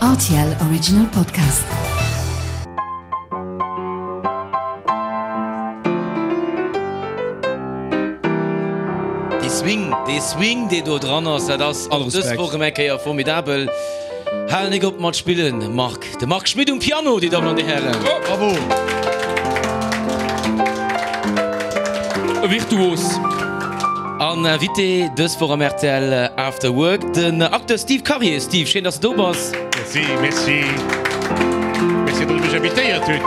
Rtl Original Podcast. Dee Swing, dee Swing dee do dran ass, dat ass och dës Woch erëm eng Kéier formidabel. Hal nik op mat spillen, Marc. De Marc Schmit um Piano, déi Dammen an déi Hären. Bravo! E Virtuos. An Invité dës Woch am rtl After Work, den Acteur Steve Karier. Steve, schéin, dass de do bass. Merci, merci. Merci, datt der mech invitéiert hutt.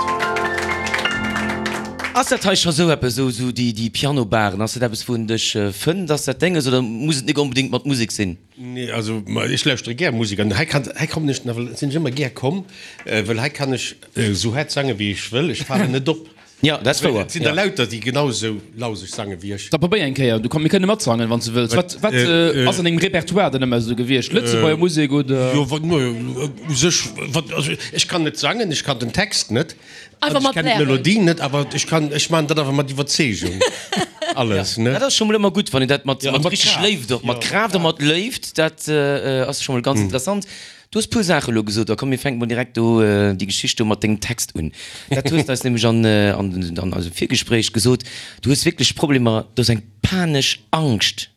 Ass dat hei scho sou eppes, sou sou déi déi Piano-Baren, ass dat eppes, wou en dech fënnt? Ass dat Denges oder muss et nik onbedéngt mat Musek sinn? Nee, also ech lauschtere gär Musek an hei kann, hei kommen ech nawell, sinn ech ëmmer gär komm, well hei kann ech esou haart sange wéi ech wëll, ech falen net op. Jo, dat ass wouer. Et sinn der lauter, déi genau esou lauseg sange wéi ech. Da probéier eng Kéier, du komm, mir kënne matsangen, wann s de wëlls. Wat, wat ass an dengem Repertoire dann ëmmer esou gewiescht? Lëtzebuerger Musek oder? Jo, wat, no, u sech, wat, also ech kann net sangen, ech kann den Text net. Einfach Ech mat kennen blären. d'Melodie net, awer ech kann, ech maachen dat awer mat Iwwerzeegung alles, ne? Dat ass scho mol ëmmer gutt, wann een dat mat Ja, mat richteg Kraaft. Léift och, mat Ja. Kraaft a mat Léift, dat ass scho mol ganz interessant. Du hues puer Saache elo gesot, da komm mir fänke mol direkt do déi Geschicht do mat dengem Text un. Dat hues de eis nämlech an an eisem Virgespréich gesot, du hues wierklech Problemer, du hues eng panesch Angscht.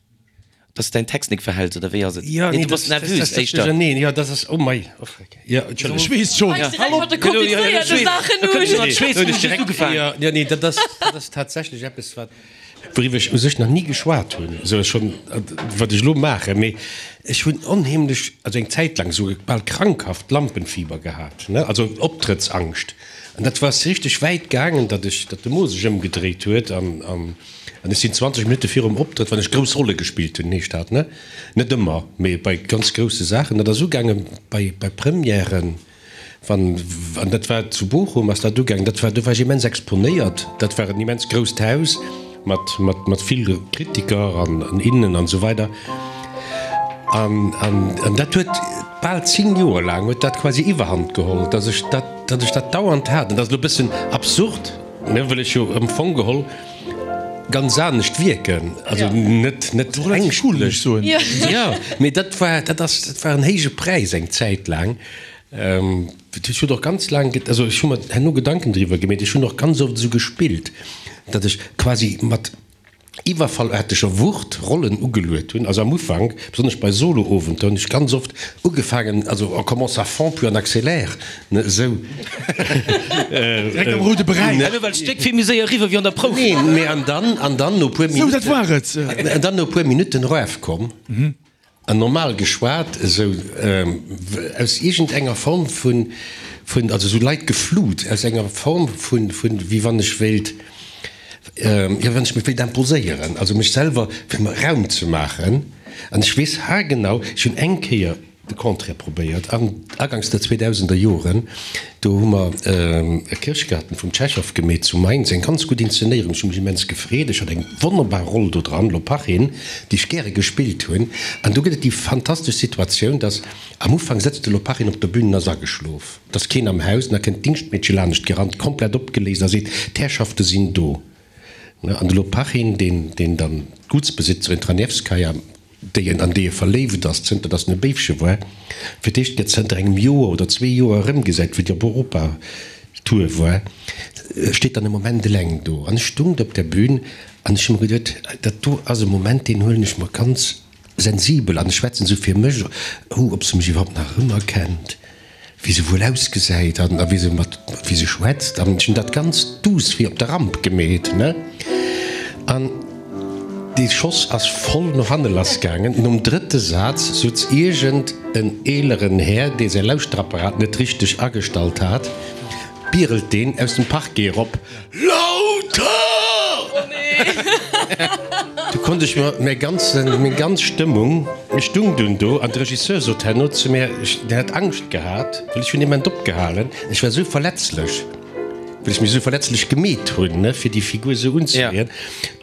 Dass de däin Text nik verhäls, oder wéi ass et? Ja, Nee, nee, du bass das, das, nervös das, das, éischter. nee, ja, das ass, oh mei, oh freck, ja, Entschëlleg. Ech weess schonn. Fänks direkt mat de komplizéierte Saachen Da kënnt un. schon an d'Schweess, Huet hunn ech ech just direkt, ugefaangen. ja, ja, nee, dat ass, dat ass tatsächlech eppes, wat, wouriwwer ech u sech nach ni geschwat hunn, esou schonn, wat ech elo maachen, mee ech hunn onheemlech, also eng Zäit laang esou bal krankhaft Lampenfieber gehat, ne, also Optrëttsangscht, an dat war richteg wäit gaangen, datt ech, datt de Mo sech ëmgedréit huet an, an. An ech sinn 20 Minutte virum Optrëtt, wann ech grouss Rolle gespillt hunn, heescht dat, ne? Net ëmmer, mee bei ganz grousse Saachen. Dat ass ugaange bei, bei Premièren, wann, an dat war zu Bochum ass dat ugaangen, dat war, do war ech immens exponéiert. Dat war en immens grousst Haus mat, mat, mat vill Kritiker an, an innen an esou weider. An, an, an dat huet bal 10 Joer laang huet dat quasi Iwwerhand geholl, dass ech dat, datt ech dat dauernd hat. An dat ass elo e bëssen absurd, ne, wëll ech jo am Fong geholl ganz anescht wierken, also net net ängschtlech soen. Jo, mee dat war dat ass dat war en héije Präis eng Zäit laang. Ech hunn och ganz laang, also ech hu mer herno Gedanken driwwer gemeet, ech hunn och ganz oft esou gespillt, datt ech quasi mat iwwerfallaarteger Wucht Rollen ugeluet hunn. Also am Ufank, besonnesch bei Solo-Owenter, hunn ech ganz oft ugefaangen, also on commence à fond puis on accélère, ne, esou. Direkt am roude Beräich. Elo well d'Stéck vill méi séier eriwwer wéi an der Prouf. Nee, mee an dann, an dann no puer Sou, dat Minutten, war et. an dann no puer Minutten erafkomm an normal geschwat, esou aus iergendenger Form vun, vun, also esou Leit geflut, aus enger Form vun, vun, wéi wann ech wéilt, jo, wann ech mech wéilt imposéieren, also mech selwer, fir mer Raum ze maachen. An ech weess haargenau, ech hunn eng Kéier de Contraire probéiert, an aganks der zweedausender Joren, do hu mer e Kirschgarten vum Tschechow gemeet zu Mainz, eng ganz gutt Inszenéierung, ech hu mech immens gefreet, ech hat eng wonnerbar Roll do dran, Lopachin, déi ech gäre gespillt hunn. An do gëtt et déi fantastesch Situatioun, dass am Ufank sëtzt de Lopachin op der Bühn an ass ageschlof, et ass keen am Haus, an da kënnt d'Dingschtmeedche lanescht gerannt, komplett opgeléist a seet, D'Herrschafte sinn do. An de Lopachin, deen, deen dann d'Gutsbesitzerin Tranevskaja, déi en, an déi e verléift ass, zënter datt en e Béifche war, fir d'éischt gëtt zënter engem Joer oder zwee Joer erëmgesäit, wéi déi op Europatour war, steet dann e Moment eleng do. An ech stung do op der Bühn an ech hu mer geduet, dat do ass e Moment, deen huelen ech mer ganz sensibel an ech schwätzen esou fir mech, oh, ob se mech iwwerhaupt nach erëmerkennt. wéi se wuel ausgesäit an a wéi se mat wéi se schwätzt an ech hunn dat ganz duuss wéi op der Ramp gemeet, ne? An dee Schoss ass voll no hanne lass gaangen. Nom drëtte Saz sutz iergend en eeleren Här, dee säi Lauschterapparat net richteg agestallt hat, Birelt deen aus dem Parquet erop, Lauter! Du konnt ech mer mäi ganzen, meng ganz Stëmmung, ech stung dunn do an de Regisseur sot herno zu mär, ech, deen hat Angscht gehat, well ech hunn ement opgehalen, ech war esou verletzlech, well ech mech esou verletzlech gemeet hunn, ne, fir déi Figur esou unzeleeën.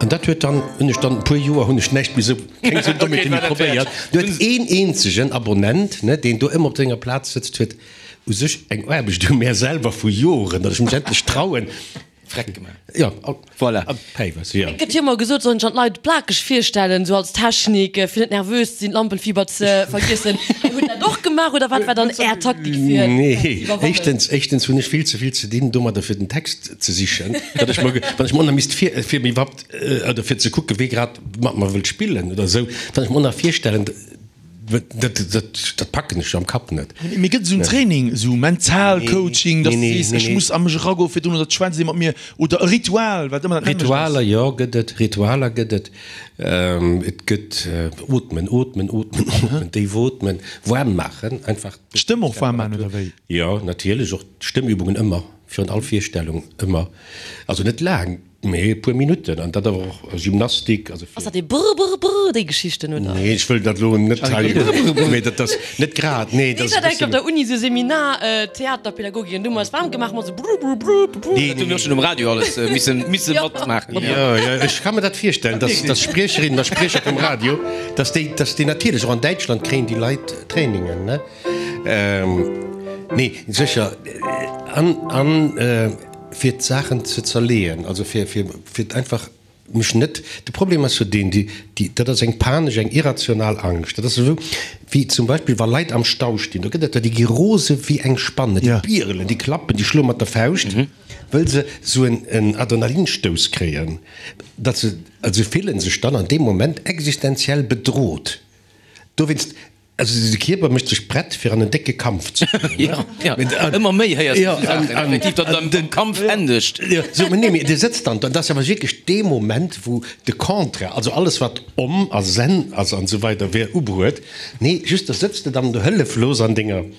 An dat huet dann, hunn ech dann e puer Joer hunn ech näischt méi esou, keng esou Dommheete méi probéiert. Du huet een eenzegen Abonnent, ne, deen do ëmmer op senger Plaz sëtzt, huet U sech eng Aarbecht u mär selwer vu Joren, datt ech mech endlech trauen. Freck gemaach. Jo, Voilà. a Päiwes, jo. Et gëtt jo ëmmer gesot, sollen sech an d'Leit plakeg virstellen, sou als Technik, fir net nervös ze sinn, d'Lampenfieber ze vergiessen. Dir hutt dat och gemaach oder wat war dann Är Taktik fir dat ze Nee, iwwerwannen? éischtens, éischtens hunn ech vill ze vill ze dinn domadder fir den Text ze sichen, datt ech mer, wann ech mer och nach misst vir, fir mir iwwerhaupt, oder fir ze kucken, wee grad mat mer wëllt spillen oder esou, wann ech mer och nach virstellen, Dat packen ech am Kapp net. Mee gëtt et esou en Training, esou mental Coaching, datt s de sees, ech muss a mech eragoen virdrun oder et schwätzt ee mat mir oder e Ritual, wat ëmmer dat nämmlecht ass? Ritualer, jo, gëtt et. Ritualer gëtt et. Et gëtt ootmen, ootmen, ootmen, ootmen, déif ootmen, waarm maachen, einfach. D'Stëmm och waarm maachen oder wéi? Jo, natierlech, och d'Stëmmübungen ëmmer, virun all Virstellung ëmmer. Also net laang. Mee e puer Minutten, an dat awer och Gymnastik, also fir. Ass dat dee brr brr brr, déi Geschichten, oder? Nee, ech wëll dat elo net hei, mee dat ass net grad, nee, dat Ech ass e hat enk op bëssen. der Uni sou Seminar Theaterpädagogik an du hu mer eis waarm gemaach mat sou brr brr brr brr brr. Dat hu mir och schonn um Radio alles misse misse matmaachen. Jo, jo, ech ka mer dat virstellen, dass, dass Spriecherinnen a Spriecher vum Radio, dass déi, dass déi natierlech och an Däitschland kréien déi Leit Trainingen, ne? Nee, sécher, an, an. Fir d'Saachen ze zerleeën, also fir, fir, fir einfach mech net, de Problem ass jo deen, déi, déi, dat ass eng panesch, eng irrational Angscht. Dat ass esou wéi zum Beispill wa Leit am Stau stinn, do gëtt et der, déi gi rose wéi eng Spanne, déi bierelen, déi klappen, déi schloe mat der Fauscht, wëll se esou en, en Adrenalinstouss kréien, datt se, also se fillen sech dann an deem Moment existenziell bedroht. Dowéinst Also de Kierper mécht sech prett fir an en décke Kampf ze goen. Jo, jo, ëmmer méi héiers du esou Saachen, effektiv, datt et am Kampf endegt. Jo, sou, nee, mee Dir sëtzt dann do, an dat ass awer wierklech dee Moment, wou de Contraire, also alles wat om a zen ass an esou weider wier ubruet, nee, just da sëtz de dann do hëlleflos an denger,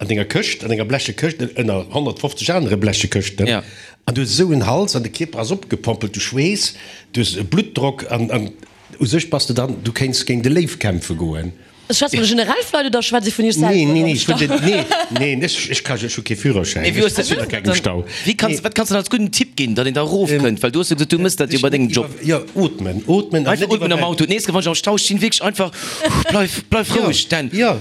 an denger Këscht, an denger bleche Këscht, ënner 150 anere bleche Këschten, an du hues esou en Hals an de Kierper ass opgepompelt, du schweess, du hues e Bluttdrock an, an. U sech bass de dann, du kéints géint e Léiw kämpfe goen. Schwätzt vun de generell Leit oder schwätzt ee vun iech selwer? Nee, nee, nee, ech vun den, nee, nee, ech, ech ka, ech hu kee Führerschäin, Mee wéi hues ech sinn a kengem Stau. Wéi kanns, wat kanns de dann als gudden Tipp ginn, datt een da erofkënnt? Well du hues jo gesot, du mëss dat jo bei dengem Job. Jo, ootmen, ootmen an Einfach net ootmen am iwwerwäl. Auto. D'nächst Kéier, wann ech am Stau stinn, wierklech einfach, bleif, bleif roueg, Dan. Jo,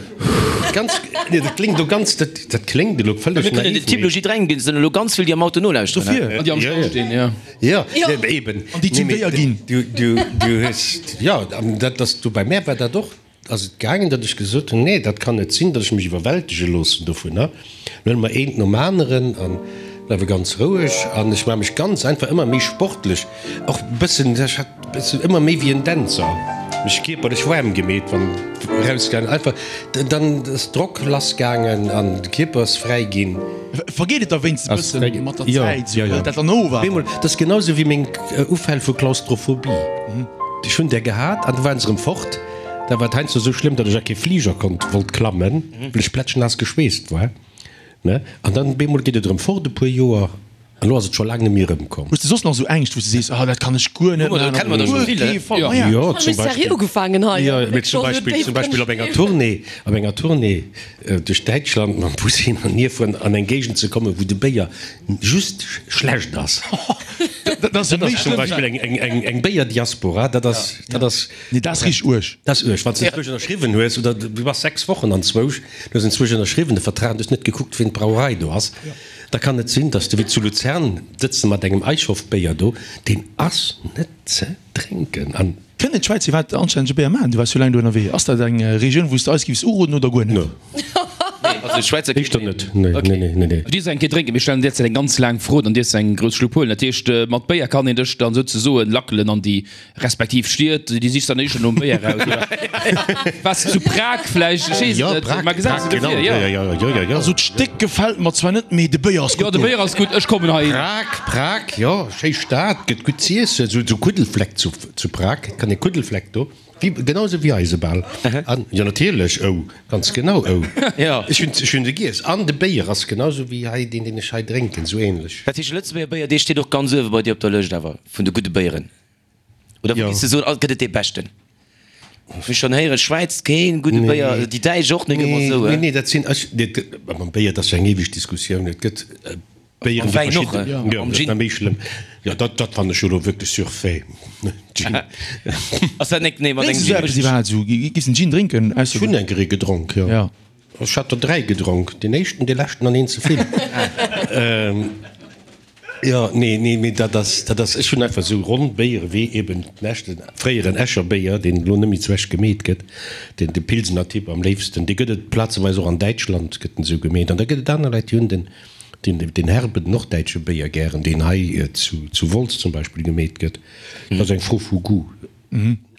ganz, nee, dat kléngt elo ganz, dat, dat kléngt elo vëlleg Mir kënnen naiv, den Tipp elo mee. jidderengem ginn, et sinn elo ganz vill, déi am Auto nolauschteren. Dofir. An déi am Stau stinn, jo. Jo, eben. An déi zum Béier ginn. Du, du, du hues, jo, an dat ass du, bei mär war dat och, ass et gaangen, datt ech gesot hunn, nee, dat kann net sinn, datt ech mech iwwerwältege loossen dovunner. Lo huele mer eent nom aneren a bleiwe ganz roueg an ech maache mech ganz einfach ëmmer méi sportlech, och e bëssen, ech hat e bëssen ëmmer méi wéi en Dänzer mech kierperlech waarm gemeet, wann erausgaangen, einfach dann ass Drock lassgaangen an de Kierper ass fräi ginn. Vergeet et da wéinstens e bëssen mat der Zäit, sou hëlt dat dann of awer? Bemol, dat ass genau sou wéi meng Ufäll vu Klaustrophobie. Ech hunn där gehat an du waren se erëm fort. Da war et heiansdo sou schlëmm, datt ech a kee Fliger konnt, wollt klammen, well ech plätschnaass geschweesst war, ne? An dann bemol geet et erëm fort e puer Joer. An elo ass et scho laang net méi erëmkomm. Hues de soss nach esou Ängscht, wou s de sees, ah dat kann ech guer net maachen, op guer kee Fall? Ma ja. Jo, zum Beispill, jo, mee zum Beispill, zum Beispill op enger Tournée, op enger Tournée duerch Däitschland mam Bus hin an hier fueren, an eng Géigend ze kommen, wou de Béier just schlecht ass. Dat ass jo Dat méi ass zum schlëmm. Beispill eng, eng, eng, eng Béierdiaspora, dat ass, dat ass. Nee, dat ass richteg uerg. Dat ass uerg, wann s de enzwousch ënnerschriwwen hues, oder du bass 6 Wochen anzwousch, du hues enzwousch ënnerschriwwen de Vertrag an du hues net gekuckt, wien d'Brauerei do ass. Da kann et sinn, dass de wéi zu Luzern sëtz de mat engem Eichhoff-Béier do, deen ass net ze drénken. An. Kënnen d'Schwäizer iwwerhaapt anstännege Béier maachen? Du waars jo laang do ënnerwee. Ass dat eng Regioun, wou s de eis giffs uroden oder guer net? No. Nee, also Schwäizer Éischter net. Nee, nee, nee, nee, nee. Du dierfs eng Kéier drénken. Mir stellen derzäit eng ganz laang Fro, dann dierfs de eng grouss Schlupp huelen. Dat heescht, mat Béier kann een dech dann souzesoen lackelen an déi Respektiv Stied, déi sichs dann éischter nom Béier raus, oder? Waars de zu Prag vläicht? Ech weess et Jo, net. Prag, Mä gesäis Prag, de genau. dofir, jo. Jo, jo, jo, jo, jo. Also d'Stéck gefält mer zwar net, mee de Béier ass Jo, gutt de do. Béier ass gutt, ech kommen heihin. Prag, Prag, jo, schéi Stad, gëtt gutt z'iessen, sou, sou Kuddelfleck zu, zu Prag, kann ee Kuddelfleck do, wéi, genau esou wéi eise bal. An, jo, natierlech, ou, ganz genau, ou. Jo. Ech hunn, ech hunn se giess. An de Béier ass genau esou wéi hei, deen, deen ech hei drénken, sou ähnlech. Dat heescht, de Lëtzebuerger Béier, dee steet och ganz uewe bei dir op der Lëscht awer, vun de gudde Béieren? Oder wou giss de soen, gëtt et dee beschten? Ech hu schonn héieren, Schwäiz keen gudde Béier, déi Däitsch och net ëmmer esou. Nee, nee, dat sinn ech, mam Béier, dat ass jo eng eweg Diskussioun. Et gëtt Béieren, déi verschidden, jo, dat ass nach méi schlëmm. Jo, dat, dat fannen ech jo elo wierklech surfait, Gin. Ass dat net, nee, mat Drénks engem du esou eppes iwwerhaapt esou? Giss en Gin drénken? Ech hunn eng Kéier ee gedronk, jo. Ech hat der 3 gedronk, deen éischten, dee leschten an een ze vill. Jo, nee, nee, mee dat ass, dat ass, ech hunn einfach esou ronn Béiere wéi eben den echten fréieren Escher Béier, deen elo net méi zu Esch gemeet gëtt, deen de Pilsener Typ am léifsten, dee gëtt et plazeweis och an Däitschland gëtt en esou gemeet. An da gëtt et aner Leit, déi hunn den, den, den herben norddäitsche Béier gären, deen hei zu, zu Wolz zum Beispill gemeet gëtt. Dat ass eng Fro vu Goût.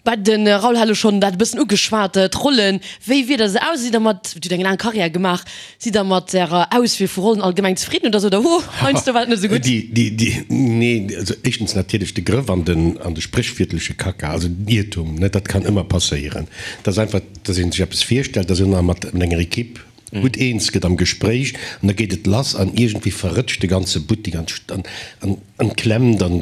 Bah, de Raoul hat elo schonn dat e bëssen ugeschwat, d'Rollen. Wéi wier der se aus? Sidd der mat, Dir hutt eng laang Karriär gemaach, sidd der mat Ärer Auswiel vu Rollen allgemeng zefridden oder sot der, Huh, heiansdo war et net esou gutt? Déi, déi, déi, nee, also éischtens natierlech de Grëff an den, an de spréchwiertleche Kacka, also den Iertum, ne, dat kann ëmmer passéieren. Dat ass einfach, dass ee sech eppes virstellt, dass een nach mat enger Equipe gutt eens gëtt am Gespréich an da geet et lass an iergendwéi verrëtscht de ganze Buttek an an an klemmt an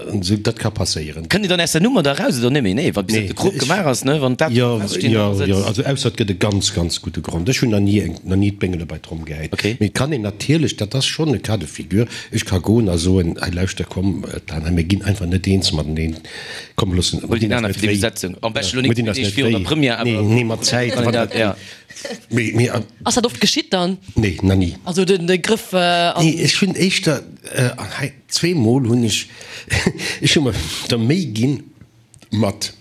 an esou. Dat ka passéieren. Kënnt Dir dann aus der Nummer da raus oder net méi? Nee, wa bis Nee, de Krop ech, gemaach ass, ne, wann dat jo, feststeet, jo, dann ass et. jo, also ausser et gëtt e ganz, ganz gudde Grond. Ech hunn nach ni eng, nach ni d'Béngele bei d'Tromm gehäit. Okay. Mee et kann een natierlech, dat ass schonn e Cas de figure, ech ka goen a soen, hei lauschter, komm, Dan, hei mir ginn einfach net eens mateneen, komm loossen, Huel mir deen dinn eis aner net fir déi wéi. Besetzung. Am beschte lo Mir nik dinn eis Deeg net virun der wéi. Première, Nee, awer nee, mat Zäit, kann een wann dat, dat, ja. mee, mee. Ass dat oft geschitt dann? Nee, nach ni. Also den de Grëff an. Nee, ech hunn éischter, an hei zweemol hunn ech, ech hu mer der Méi ginn mat,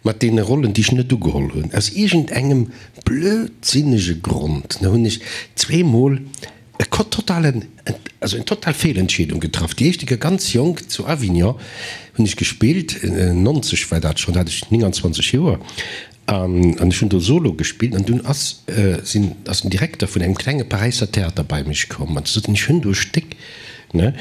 mat deene Rollen, déi ech net ugeholl hunn, aus iergendengem blödsinnege Grond, ne, hunn ech zweemol e totalen, also eng total Feelentscheedung getraff. Déi éischte Kéier ganz jonk zu Avignon hunn ech gespillt, 90 war dat schonn, da hat ech 29 Joer, An ech hunn do Solo gespillt an dunn ass, sinn, ass den Direkter vun engem klenge Paräisser Theater bei mech komm an sot, ech hunn do e Stéck, ne,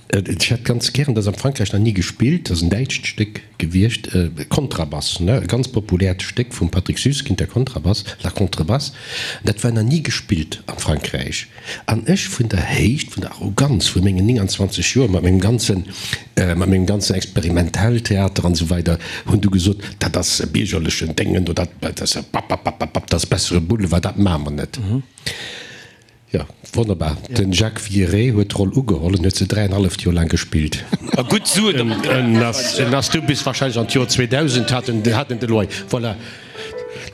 ech hätt ganz gären, dat ass am Frankräich nach ni gespillt, dat ass en däitscht Stéck gewiescht, Kontrabass, ne, e ganz populäert Stéck vum Patrick Süskind, der Kontrabass, La Contrebasse, dat war nach ni gespillt am Frankräich. An ech vun der Héicht, vun der Arroganz vu mengen 29 Joer, mat mengem ganzen, mat mengem ganzen Experimentelltheater an esou weider, hunn du gesot, dat ass e biergerlechen Déngen do, dat, dat ass e Pappappapapp, dat ass bessere Boulevard, dat maache mer net. Jo, wonnerbar. De Jacques Villeret huet d'Roll ugeholl en huet se dräienhalleft Joer laang gespillt. A gutt Suen domat gemaach. En ass, en ass du bis wahrscheinlech an d'Joer 2000 hat en, hat en de Loyer. Voilà.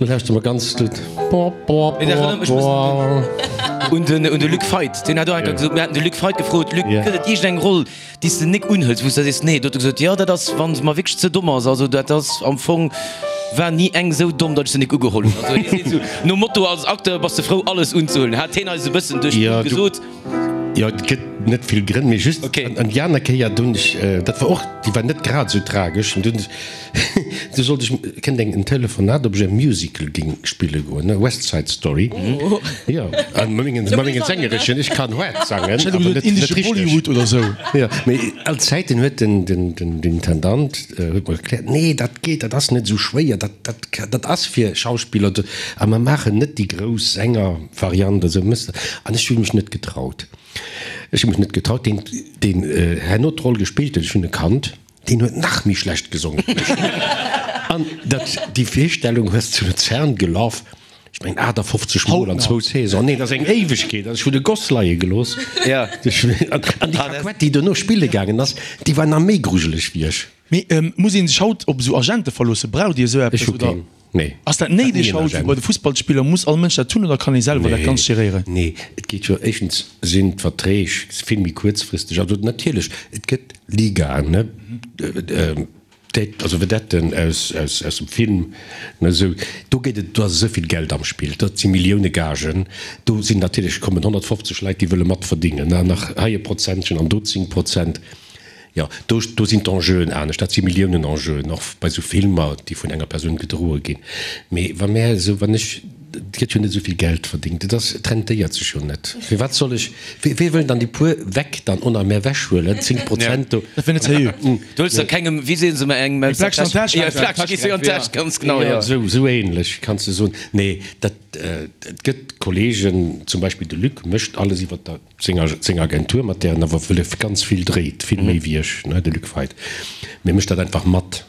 Lo lauschteren mer ganz gutt. Mee dat erënnert mech e bëssen un den, un de Luc Feit. Deen hat och eng Kéier gesot, mir haten de Luc Feit gefrot, Luc, gëtt et iergendeng Roll, déi s de nik unhëls, wou s de sees, nee? Do huet e gesot, jo, dat ass, wa se mer wierklech ze domm ass. Also dat ass am Fong, war ni eng esou domm, datt ech se nik ugeholl hunn. Also hie seet esou nom Motto, als Acteur bass de frou, alles unzehuelen, hat hien eis e bëssen duerch d'Blumm gesot. Jo, et gëtt net vill Grënn, mee just an déi aner Kéier, do hunn ech, dat war och, déi war net grad esou tragesch, an du hunn ech, du sollt ech, kënnt eng en Telefonat, ob ech e Musical géing spille goen, ne, West Side Story, jo, an mat mengen, mat mengen Sängereschen, ech kann haart sangen, Ech hätt awer elo gesot net, net indesche richteg. Bollywood oder sou. Jo, mee all Zäiten huet den, den, den, den Intendant huet mer erkläert, nee, dat geet, dat ass net esou schwéier, dat, dat, dat ass fir Schauspiller, a mer maachen net déi grouss Sänger. Variant esou mëss de. An ech hu mech net getraut. Ech hu mech net getraut. Deen, deen herno d'Roll gespillt huet, ech hunn e kannt, deen huet nach méi schlecht gesongen wéi ech. An dat, déi Virstellung hues zu Luzern gelaf, ech mengen 58 Mol an zwou Saisons. Nee, dat ass eng Éiwegkeet. Also ech hunn e Goss leie gelooss. An déi Kaquett, déi dono spille gaangen ass, déi war nach méi grujeleg wéi ech. Mee muss een sech haut op esou Agente verloossen? Braucht Dir esou Ech eppes hu oder keen. Nee. ass dat néideg haut wéi bei de Fussballspiller? Muss all Mënsch dat hunn oder kann ee selwer dat Ganzt geréieren? Nee, et geet jo, éischtens sinn d'Verträg vill méi kuerzfristeg. Also natierlech, et gëtt Ligaen, ne, also Vedetten aus, aus, aus dem Film, ne, esou, do geet et, do ass esou vill Geld am Spill, dat si Millioune Gagen, do sinn natierlech, kommen 150 Leit, déi wëlle matverdingen, ne, an nach hei e Prozentchen an do 10 Prozent. Jo, do, do sinn d'Enjeuen anescht. Dat si Milliounen-Enjeuen, och bei esou Filmer, déi vun enger Persoun gedroe ginn. Mee wa mär esou, wann ech, et gëtt jo net esou vill Geld verdéngt, et ass, et rentéiert sech jo net. Firwat soll ech, wee, wee wëll dann déi puer weg dann on a mär wechhuelen, 10 Prozent do? Dat wär net seriö. Du huels der kengem, wéi seen se ëmmer, engem Eng Fläsch an d'Täsch. Jo, eng Fläsch gees du an d'Täsch, ganz genau, jo. Esou, esou ähnlech kanns de soen. Nee, dat, et gëtt Kollegen, zum Beispill de Luc mécht alles iwwer der. Seng Agentur, mat där en awer wëlle ganz vill dréit, vill méi wéi ech, ne, de Luc Feit, mee mécht dat einfach mat,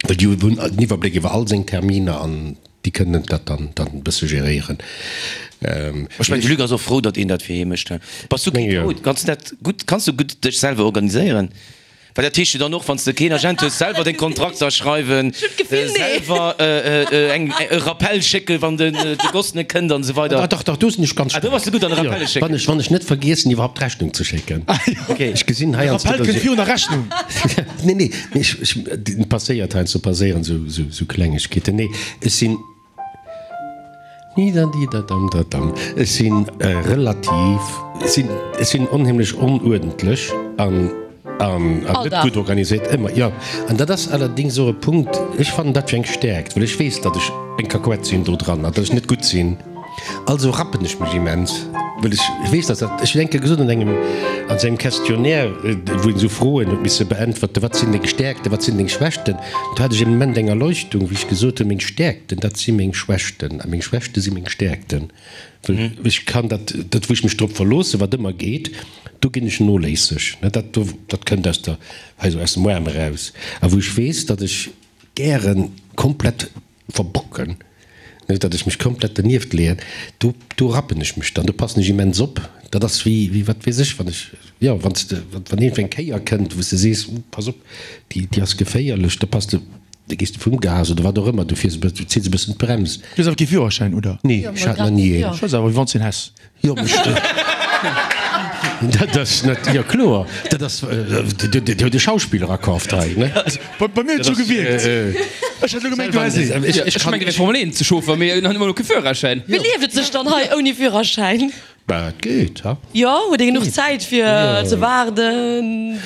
well déi hunn den Iwwerbléck iwwer all seng Terminer an déi kënnen dat dann dann e bësse geréieren. Ech mengen, de Luc ass och frou, datt een dat fir hie mécht. Bass du keen Chaot? Kanns du dat gutt, kanns du gutt dech selwer organiséieren? Well dat heescht jo dann och, wann s de keen Agent hues, selwer deng Kontrakter schreiwen, selwer eng e Rappel schécken, wann den de Goss net kënnt an esou weider. Ah dach, dach, do sinn ech ganz Ah, do bass de gutt an Rappelle schécken. Wann ech, wann ech net vergiessen, iwwerhaupt d'Rechnung ze schécken. Okay. Ech gesinn hei De Rappel kënnt virun der Rechnung. Nee, nee, mee ech, ech, passéiert heiansdo passéieren esou, esou, esou Klengegkeeten. Nee, ech sinn. Nidadidadamdadam. Ech si relativ, ech sinn, ech sinn onheemlech onuerdentlech an, an, an net gutt organiséiert, ëmmer, jo. An dat ass allerdéngs och e Punkt, ech fannen dat fir eng Stäerkt, well ech weess, datt ech eng Kakuett sinn do dran an datt ech net gutt sinn. Also rappen ech mech immens, well ech weess, datt dat, ech hunn eng Kéier gesot an engem, an esou engem Questionnaire, wou een esou Froen huet misse beäntwerten, wat sinn deng Stäerkten, wat sinn deng Schwächten? Do hat ech e Moment eng Erleuchtung, wéi ech gesot hunn, meng Stäerkten, dat si meng Schwächten a meng Schwächte si meng Stäerkten. Well ech kann dat, dat wou ech mech drop verloossen, wat ëmmer geet, do ginn ech noléisseg. Dat do, dat kënnt aus der, hei esou aus dem Aarm eraus. A wou ech weess, datt ech gäre komplett verbocken, datt ech mech komplett dernieft leeën, do, do rappen ech mech dann, do passen ech immens op. Dat ass wéi, wéi wat weess ech, wann ech, jo, wann s de, wann iergendwéi eng Kéier kënnt, wou s de sees, uh, pass op, déi, déi ass geféierlech, da pass de, da gees de vum Gas oder wat och ëmmer, du fiers e bëssen, du zills e bëssen d'Brems. Du hues awer kee Führerschäin, oder? Nee, ech hat nach ni een. Ech weess awer, wéi wann s de een häss. Jo, bestimmt. Dat ass net, jo kloer, dat ass, Dir hutt e Schauspiller akaaft hei, ne? Bei mir huet et sou gewierkt. Ech hat elo gemengt, du häss een. Ech mengen, fir Formel 1 ze chauffer, mee en huet ëmmer elo kee Führerschäin. Wéi lieft et sech dann hei ouni Führerschäin? Bah, et geet, ha? Jo, huet ee genuch Zäit fir ze waarden?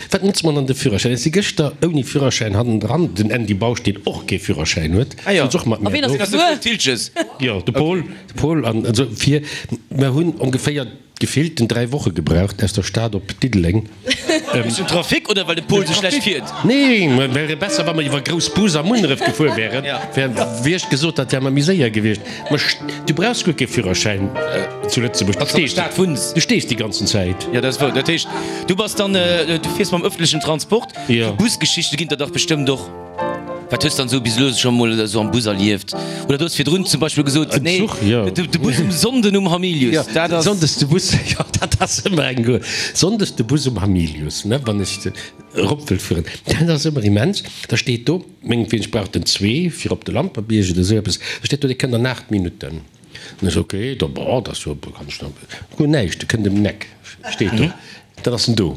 Wat notzt mer dann de Führerschäin? Ech si gëschter ouni Führerschäin hannendran, den Andy Bausch, deen och kee Führerschäin huet, souz och mat mir do. Jo, de Paul, de Paul an esou vir. Mer hunn ongeféier gefillt den 3 Woche gebraucht aus der Stad op Diddeleng. Wéinst dem Trafic oder well de Paul sou schlecht fiert? Nee, mer wäre besser, wa mer iwwer Groussbus a Munneref gefuer wären. Wär, wéi ech gesot hat, wär mer méi séier gewiescht. Mä du brauchs guer kee Führerschäin zu Lëtzebuerg. Du stees, du stees déi ganzen Zäit. Jo, dat ass wouer. Dat heescht, du bass dann, du fiers mam ëffentlechen Transport. Jo. Busgeschichte ginn der dach bestëmmt och. Wat hues dann esou bis elo scho mol esou am Bus erlieft? Oder du hues virdrun zum Beispill gesot, nee, Zuch, jo. de Bus um Sonnden um Hamilius, dat ass. Sonndes de Bus, jo, dat ass ëmmer eng guer. Sonndes de Bus um Hamilius, ne, wann ech erop wëll fueren, dat ass ëmmer immens. Da steet do. Mengetween, ech brauch den zwee fir op de Lampertbierg oder esou eppes, da steet do, dee kënnt an 8 Minutten. An ech, ok, da bon, dat ass jo, kann ech nach, guer näischt, e kënnt ëm den Eck, steet do, dann ass en do.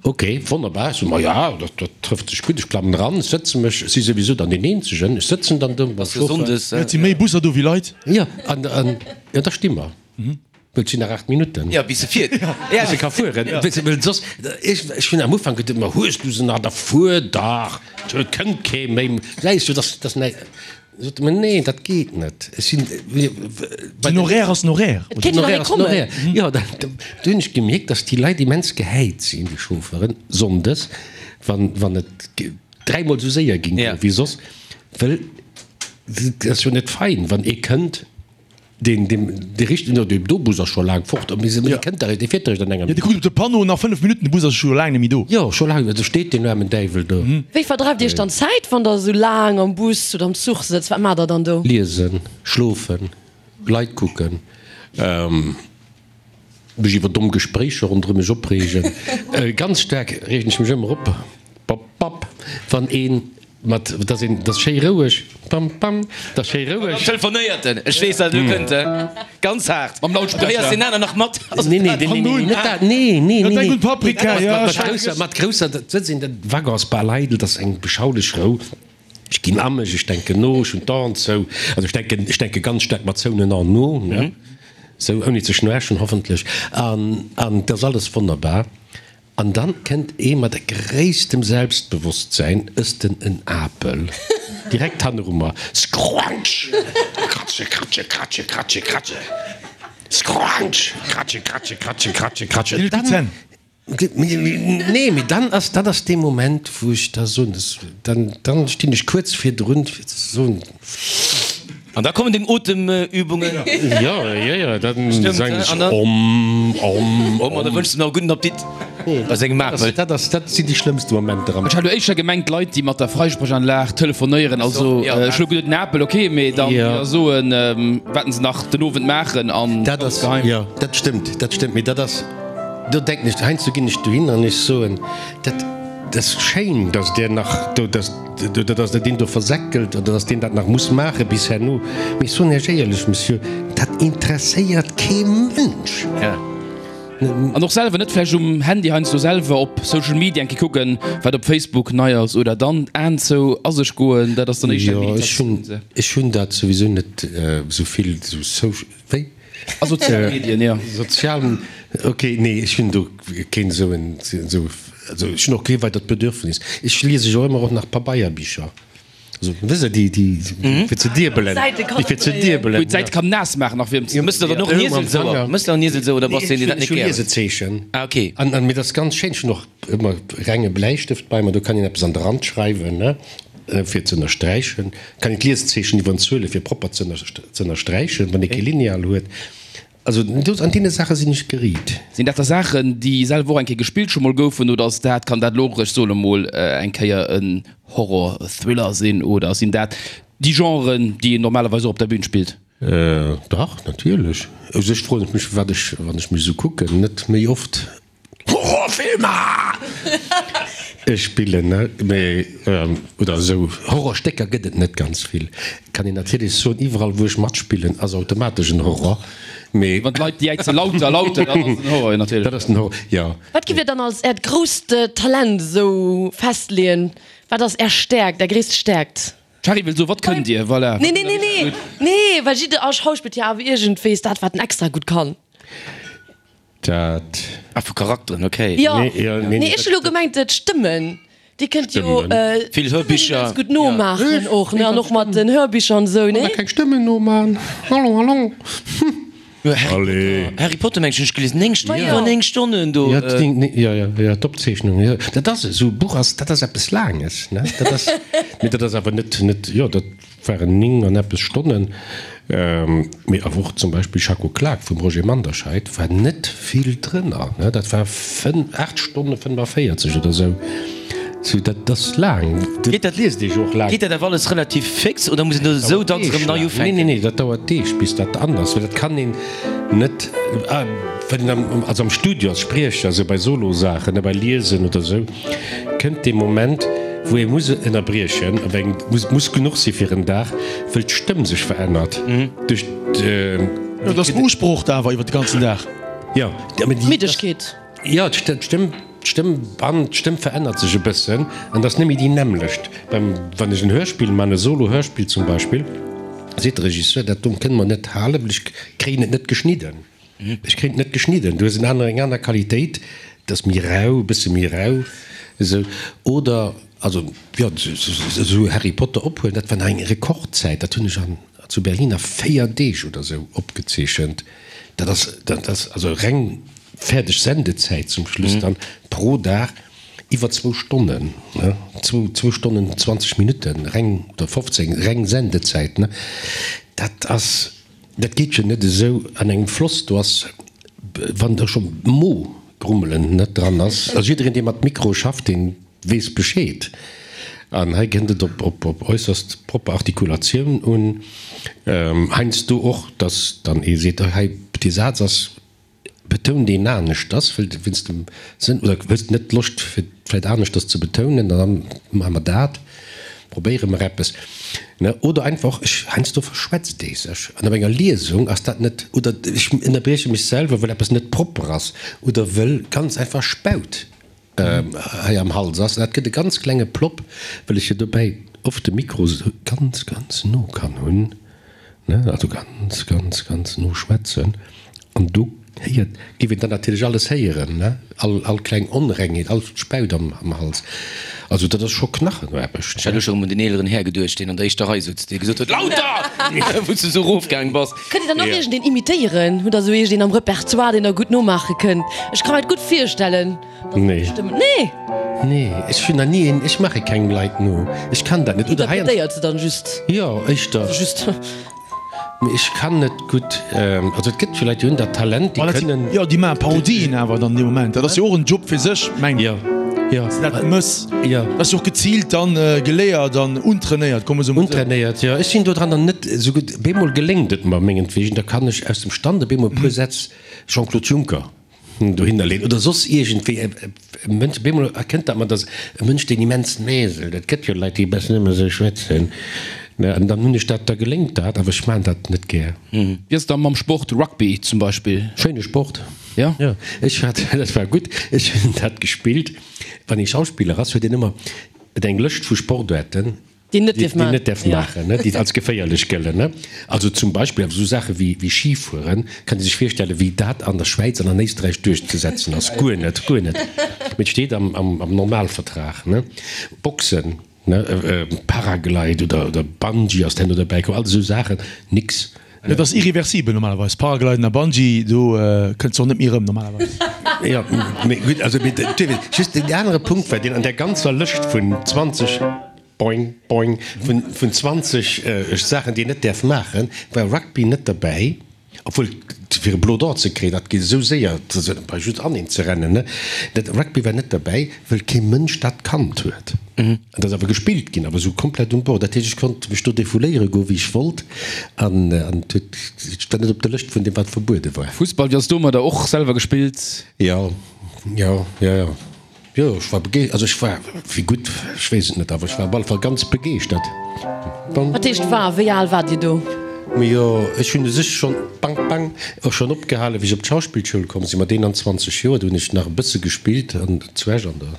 Ok, wonnerbar, ech so, ma ja, dat, dat trëfft sech gutt, ech klammen eran, ech sëtze mech, ech si souwisou dann deen Eenzegen, ech sëtzen dann do mam Chauffeur. Et si méi Busser do wéi Leit. Jo, an, an, jo, da sti mer. Well et sinn nach 8 Minutten. Jo, bis e fiert. Bis e ka fueren. Well soss, ech, ech hunn am Ufank geduet, ma hues du se nach, da fuer dach, et kënnt kee méi. Läis du, dass, dass näi. Sot e mer, nee, dat geet net. Ech sinn, bei Den Horaire ass den Horaire. Et kéint jo nach ee kommen. Jo, da, do hunn ech gemierkt, dass déi Leit immens gehäit sinn, déi Chauffeuren, sonndes, wann, wann et dräimol esou séier ging wéi soss. Well et ass jo net fein, wann ee kënnt. Deen, deen, dee richtegen, jo, dee do Bus ass scho laang fort, mee se, dee kënnt dach, dee fiert eréischt an enger Jo, dee kuckt op de Panneau, nach 5 Minutten, de Bus ass scho laang net méi do. Jo, scho laang, do steet deen aarmen Däiwel do. Wéi verdreift Dir Iech dann d'Zäit, wann Der esou laang am Bus oder am Zuch sëtzt? Wat maacht Der dann do? Liesen, schlofen, Leit kucken, mech iwwer domm Gespréicher ronderëm mech opreegen. Ganz staark reegen ech mech ëmmer op, bap, bap, wann een Mat, dass een, dass schéi roueg, pam, pam, dass schéi roueg. Dann telefonéiert en, ech weess dat, elo kënnt e ganz haart. Mam Lautsprecher. Du héiers deen aner nach mat. Nee, nee, nee, nee, nee, net dat, nee, nee, nee, nee. Paprika, ja. Mat grousser, mat grousser, dat sëtzt een, dat Wagon ass bal eidel, dat ass eng beschaulech Rou. Ech ginn a mech, ech denken no, ech hunn d'Aen zou, also ech denken, ech denke ganz staark mat zouenen Aen no, ne, sou, ouni ze schnoarchen hoffentlech, an, an et ass alles wonnerbar. An dann kënnt ee mat gréisstem Selbstbewosstsäin, ësst en en Apel, direkt hanneru mer, Scrunch! Kratsche, kratsche, kratsche, kratsche, kratsche, Scrunch! Kratsche, kratsche, kratsche, kratsche, kratsche. Deen huet gutt Zänn. Nee, mee dann ass, dat ass dee Moment, wou ech da soen, dann, dann stinn ech kuerz virdrun, fir ze soen. An da kommen deng Otemübungen. Jo, jo, jo, dann sangen ech om, om, om. An da wënschs de nach e gudden Appetit bei sengem Apel. Dat ass, dat sinn déi schlëmmste Momenter am. Ech hat elo éischter gemengt, Leit, déi mat der Freisprechanlag telefonéieren, also ech hu elo geduet, den Apel, ok, mee dann déi da soen, wat se nach den Owend maachen an Dat ass, geheim. Jo, dat stëmmt, dat stëmmt, mee dat ass. Do denken ech, heiansdo ginn ech dohin an ech soen, dat ass schéin, datt Der nach do, datt, datt Der deen do versäckelt oder datt deen dat nach muss maache bis herno. Mee ech soen Iech éierlech, Monsieur, dat interesséiert kee Mënsch. An och selwer net vläicht um Handy heiansdo selwer op Social Media eng Kéier kucken, wat op Facebook nei ass oder dann d'Aen zou a sech goen, dat ass dann éischter eng Jo, ech hunn, Meditatioun. ech hunn dat souwisou net esou vill, esou Social, wéi? A sozial Medien, jo. Sozial, ok, nee, ech hunn do keen esou en, esou, also ech hunn och kee weidert Bedürfnis. Ech liese jo ëmmer och nach Pabeierbicher. Also, wësst Der, déi, déi fir ze diebelen, déi fir ze diebelen. Wou een d'Säite kann naass maachen nach fir Jo, mëss de dann och Niesel sou? Mëss de och Niesel sou oder bass de een, deen dat net Ech hu gär huet? Liesezeechen. Ah, ok. An, an, mee dat ass ganz schéin. Ech hunn och ëmmer renge Bläistëft bei mer, do kann een eppes an de Rand schreiwen, ne, fir ze ënnersträichen. Kann een d'Liesezeechen iwwer en Zuele fir propper ze ënnersträichen, wann ee kee Lineal huet. Also do, an deene Saache sinn ech geriit. Sinn dat da Saachen, déi selwer och eng Kéier gespillt scho mol goufen, oder ass dat, kann dat elo och, ech soen emol, eng Kéier en Horror-Thriller sinn, oder sinn dat déi Genren, déi een normalerweis och op der Bühn spillt? Dach, natierlech. U sech froen ech mech, firwat ech, wann ech mech esou kucken, net méi oft Horrorfilmer spillen, ne? Mee, oder esou Horrorstécker gëtt et net ganz vill. Kann een natierlech soen, iwwerall wou ech matspillen ass automatesch en Horror, mee. Wann d'Leit jäize lauter, lauter, dann ass et en Horror, jo natierlech. Dat ass den Horror, jo. Wat giff Dir dann als Äert grousst Talent esou festleeën? Wat ass Är Stäerkt, Är gréisst Stäerkt? D'Shari wëll soen, wat kënnt Dir? Voilà. Nee, nee, nee, nee, nee, well jidder Schauspiller huet jo awer iergendwéis dat, wat en extra gutt kann. Dat. Ah, vu Charakteren, ok. Jo, nee, ech hu lo gemengt d'Stëmmen. Dir kënnt jo Vill Hörbicher ganz gutt nomaachen och, ne? An och mat den Hörbicher an esou, nee? Keng Stëmmen noman, hallo, hallo, Allez. Harry Potter mengen ech hunn ech gelies, 9 Stonnen, iwwer 9 Stonnen do. Jo, jo, jo, jo, d'Opzeechnung, jo, dat ass esou e Buch ass, dat ass eppes Laanges, ne? Dat ass, mee dat ass awer net, net, jo, dat. Waren 9 an eppes Stonnen, mee awer och zum Beispill Schacko Klak vum Roger Manderscheid war net vill drënner, ne, dat war 8 Stonne 45 oder sou. Sou, dat ass laang, dat liest ee jo och laang. Geet dat awer alles relativ fix oder muss een do esou dacks erëm nei ufänken? Nee, nee, nee, dat dauert Deeg bis dat an ass, well dat kann een net, wann een am, also am Studio als Spriecher, sou bei Solosaachen, ne, bei Liesen oder sou. Kënnt dee Moment, wou ee muss ënnerbriechen, op eng muss muss genuch si fir en Dag, wëll d'Stëmm sech verännert duerch d'. Jo, dat ass beusprocht awer iwwer de ganzen Dag. Jo, mä déi. Middegkeet. Jo, d'Stëmm, d'Stëmmband, d'Stëmm verännert sech e bëssen an dat ass net méi déi nämmlecht. Beim, wann ech en Hörspill man, e Solo-Hörspill zum Beispill, seet de Regisseur, dat do kënne mer net halen, well ech kréien et net geschnidden. Ech kréien et net geschnidden. Du hues en aner, eng aner Qualitéit, et ass méi rau, e bësse méi rau esou. Oder, also jo, esou Harry Potter ophuelen, dat war nach eng Rekordzäit, dat hunn ech an, zu Berlin a 4 Deeg oder esou opgezeechent. Dat ass, dat ass also reng fäerdeg Sendezäit zum Schluss dann pro Dag iwwer zwou Stonnen, ne, zwou, zwou Stonnen 20 Minutten reng, oder 15 reng Sendezäit, ne. Dat ass. Dat geet jo net esou an engem Floss, do ass, wann do scho Mo-Grummelen net dran ass, also jiddereen dee mat Mikro schafft, dee weess Bescheed. An hei kënnt et op op äusserst propper Artikulatioun un, heiansdo och, datt dann ee seet, hei dee Saz ass Betount een aneschters, wëll wéinst dem Sënn, oder hues de net Loscht fir vläit aneschters ze betounen, dann maache mer dat, probéiere mer eppes, ne? Oder einfach, ech, heiansdo verschwätzt ee sech an op enger Liesung ass dat net, oder ech ënnerbrieche mech selwer, wëll eppes net propper ass oder wëll ganz einfach Spaut hei am Hals ass. Dat gëtt e ganz klenge Plopp, well ech jo dobäi oft de Mikro esou ganz, ganz no kann hunn, ne, also ganz, ganz, ganz no schwätzen an do héiert, géif een dann natierlech alles héieren, ne, all, all kleng Onrengheet, all Spaut am, am Hals. Also dat ass scho Knachenaarbecht. Ech hat elo scho rëm un den eeleren Här geduecht, deen an der éischter Rei sutz, dee gesot huet, Lauter! wou s du esou erofgaang bass. Kënnt Dir dann och iergendeen imitéieren? Hutt Der esou iergendeen am Repertoire, deen Der gutt nomaache kënnt? Ech ka mer et gutt virstellen, dass Der Nee. Stëmmen. Nee! Nee, ech hunn nach ni een, ech maache kengem Leit no. Ech kann dat net. Oder heiansdo. Interpretéiert se dann just? Jo, éischter. Also just. Mee ech kann net gutt, also et gëtt jo Leit, déi hunn dat Talent, déi kënnen. Jo, déi maache Parodien awer dann dee Moment. Dat ass jo och en Job fir sech, mengen ech. Jo, jo. Dass de dat mëss. Jo. Dat ass jo och geziilt dann geléiert an untrainéiert, komme se emol esou. Untrainéiert, jo. Ech sinn dodran dann net esou gutt. Bemol geléngt et mer mengetwegen, da kann ech aus dem Stand e bemol e puer Sätz Jean-Claude Juncker. dohinner leeën oder soss iergendwéi e Mënsch, op eemol erkennt dat mer, dass e Mënsch, deen immens näselt, et gëtt jo Leit, déi e bëssen ëmmer esou schwätzen, ne, an dann hunn ech dat, da geléngt dat, awer ech maachen dat net gär. Wéi ass et da mam Sport, Rugby zum Beispill? Schéine Sport. Jo? Jo, ech hat, dat war gutt, ech hunn dat gespillt. Wann ee Schauspiller ass, huet een ëmmer eng Lëscht vu Sportaarten, Déi net dierf maachen. Déi net däerf maachen, déi als geféierlech gëllen. Also zum Beispill awer esou Saache wéi Schifueren, kann ee sech virstellen, wéi dat an der Schwäiz an an Éisträich duerchzesetzen ass. Guer net, guer net. Mee et steet am Normalvertrag. Boxen, Paraglide oder Bungee ass herno derbäi komm, all esou Saachen, nix. Dat ass irreversibel normalerweis. Paragliden a Bungee, do kënns de och net méi erëm normalerweis. Jo, mee gutt, also mee just deen anere Punkt war, deen an där ganzer Lëscht vun 20, boing, boing, vun 20 Saachen, déi een net däerf maachen, war Rugby net derbäi. Obwuel, fir e Blo d'Or ze kréien, dat geet esou séier, bei just aneen ze rennen, ne? Dat Rugby war net derbäi, wëll kee Mënsch dat kannt huet. An dat ass awer gespillt ginn, awer esou komplett um Bord. Dat heescht, ech konnt mech do defouléiere goen, wéi ech wollt, an et huet, et war net op der Lëscht vun deem, wat verbuede war. Fussball, wéi ass domadder? Och selwer gespillt? Jo, jo, jo, jo. Jo, ech war begeeschtert, also ech war, wéi gutt, ech weess et net, awer ech war op alle Fall ganz begeeschtert. Wat heescht war? Wéi al waart Dir do? Jo, ech hunn u sech schonn, bang, bang, och schonn opgehalen, wéi ech op d'Schauspillschoul komm sinn, mat 21 Joer. Do hunn ech nach e bësse gespillt an zu Esch an der.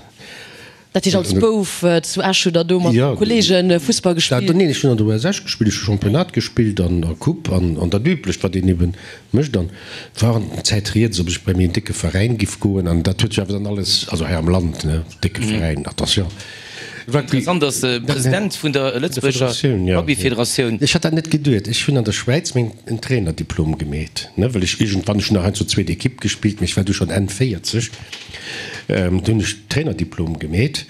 Dat heescht als Bouf zu Esch hutt Der do mat Kolleege Fussball gespillt? Neen, ech hunn an der US Esch gespillt, ech hu Championnat gespillt an a Coupe an dat Üblecht, wat een eben mécht. An war an der Zäit rieds, ob ech bei méi en décke Veräin giff goen, an dat huet sech awer dann alles, also hei am Land, ne, décke Veräin, attention. Interessant ass, President vun der Lëtzebuerger Rugbyfederatioun. Ech hat dat net geduet. Ech hunn an der Schwäiz meng en Trainerdiplom gemeet, ne, well ech iergendwann, ech hunn nach heiansdo zweet Equipe gespillt, mee ech war du schonn Enn 40, du hunn ech Trainerdiplom gemeet.